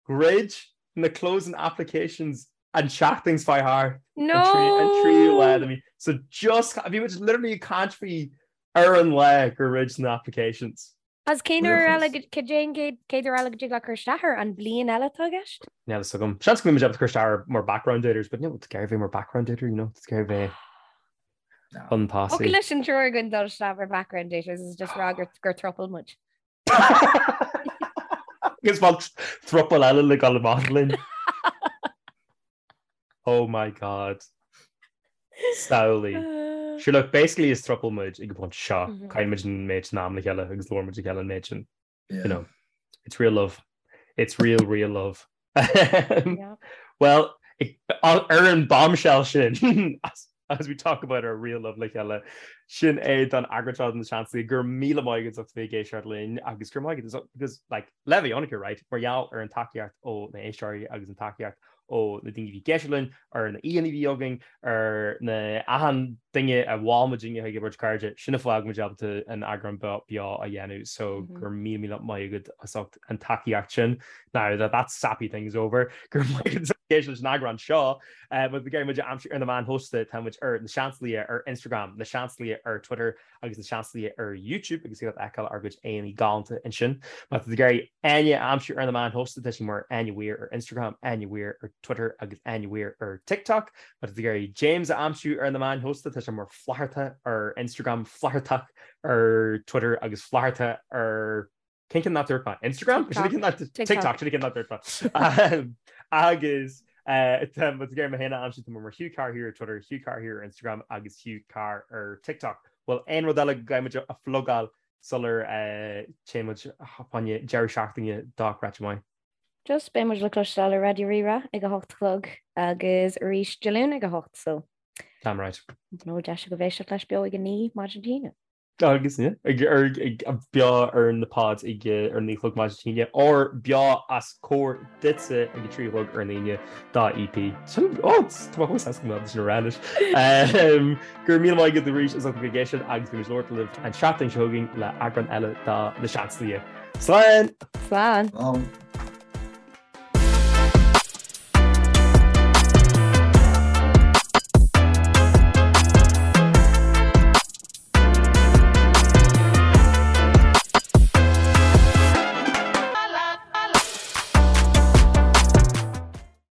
Dhruid na closing applications an tseachtain seo chuaigh thart. No! An tríú lá de mhí. So just, bhí muid literally ag caint faoi ar an lá gur dhruid na applications. Agus cén uair eile, cad é an chéad uair eile go dtig leat cur isteach air? An bliain eile atá i gceist? Níl a fhios agam. Seans go mbeidh muid ábalta cur isteach air mar background daters, but níl tú ag iarraidh bheith mar background dater, you know, tá tú ag iarraidh bheith chun tosaigh. Thiocfadh leis an triúr againn dul isteach mar background daters is just rá gur throuple muid. Agus bhfuil throuple eile le dul amach linn. Oh my god. Samhlaigh. Sure look, basically is throuple muid ag an bpointe seo. Mhm. Caitheann muid an méid sin am le chéile agus labhrann muid le chéile an méid sin. You know, it's real love. It's real, real love. Yeah. Well, ar an bombshell sin, as we talk about our real love le chéile, sin é don eagrán seo de Na Seansálaithe, go raibh míle maith agat as ucht bheith ag éisteacht linn agus go raibh maith agat because like, le bheith ionraic, right, mar gheall ar an tacaíocht ó na héisteoirí agus an tacaíocht ó na daoine a bhí ag éisteacht linn, ar na aíonna a bhí againn, ar na achan duine a mhol muidinne chuig a bheirt cairde, sin an fáth go bhfuil muid ábalta an eagrán beo a dhéanamh so go raibh míle míle maith agat as ucht an tacaíocht sin. Now that that sappy thing is over, go raibh maith agat as ucht éisteacht leis an eagrán seo. Má tá tú ag iarraidh muid a aimsiú ar na meáin shóisialta, tá muid ar Na Seansálaithe ar Instagram, Na Seansálaithe ar Twitter agus Na Seansálaithe ar YouTube agus thig leat fheiceáil ár gcuid aíonna galánta ansin. Má tá tú ag iarraidh Áine a aimsiú ar na meáin shóisialta, tá sí mar Áine Weir ar Instagram, Áine Weir ar Twitter agus Áine Weir ar TikTok. Má tá tú ag iarraidh James a aimsiú ar na meáin shóisialta, tá sé mar Flatharta ar Instagram, Flathartach ar Twitter agus Flatharta ar Cén ceann nach dúirt mé? Instagram? TikTok sin an ceann nach dúirt mé. Agus má tá tú ag iarraidh mé féin a aimsiú tá mé mar Hugh Carr here ar Twitter, Hugh Carr here ar Instagram agus Hugh Carr ar TikTok. Bhfuil aon rud eile go gcaithfidh muid a phlugáil sular téann muid fá choinne deireadh seachtaine dochreidte maith? Just beidh muid le cloisteáil ar Raidió Rí-Rá ag a hocht a chlog agus arís Dé Luain ag a hocht so. Damn right. Nó deis agaibh éisteacht leis beo ag a naoi maidin Dé hAoine. Agus beo ar na pods ag ar a naoi a chlog maidin Dé hAoine or beo os comhair duitse ag a 3 a chlog ar an Aoine dá EP. Sin ó tá mé chomh sásta go mbeadh sin a rá anois. Go raibh míle maith agat arís as ucht a bheith ag éisteacht agus beidh muid ag labhairt libh an tseachtain seo chugainn le eagrán eile de Na Seansálaithe. Slán! Slán! Slán!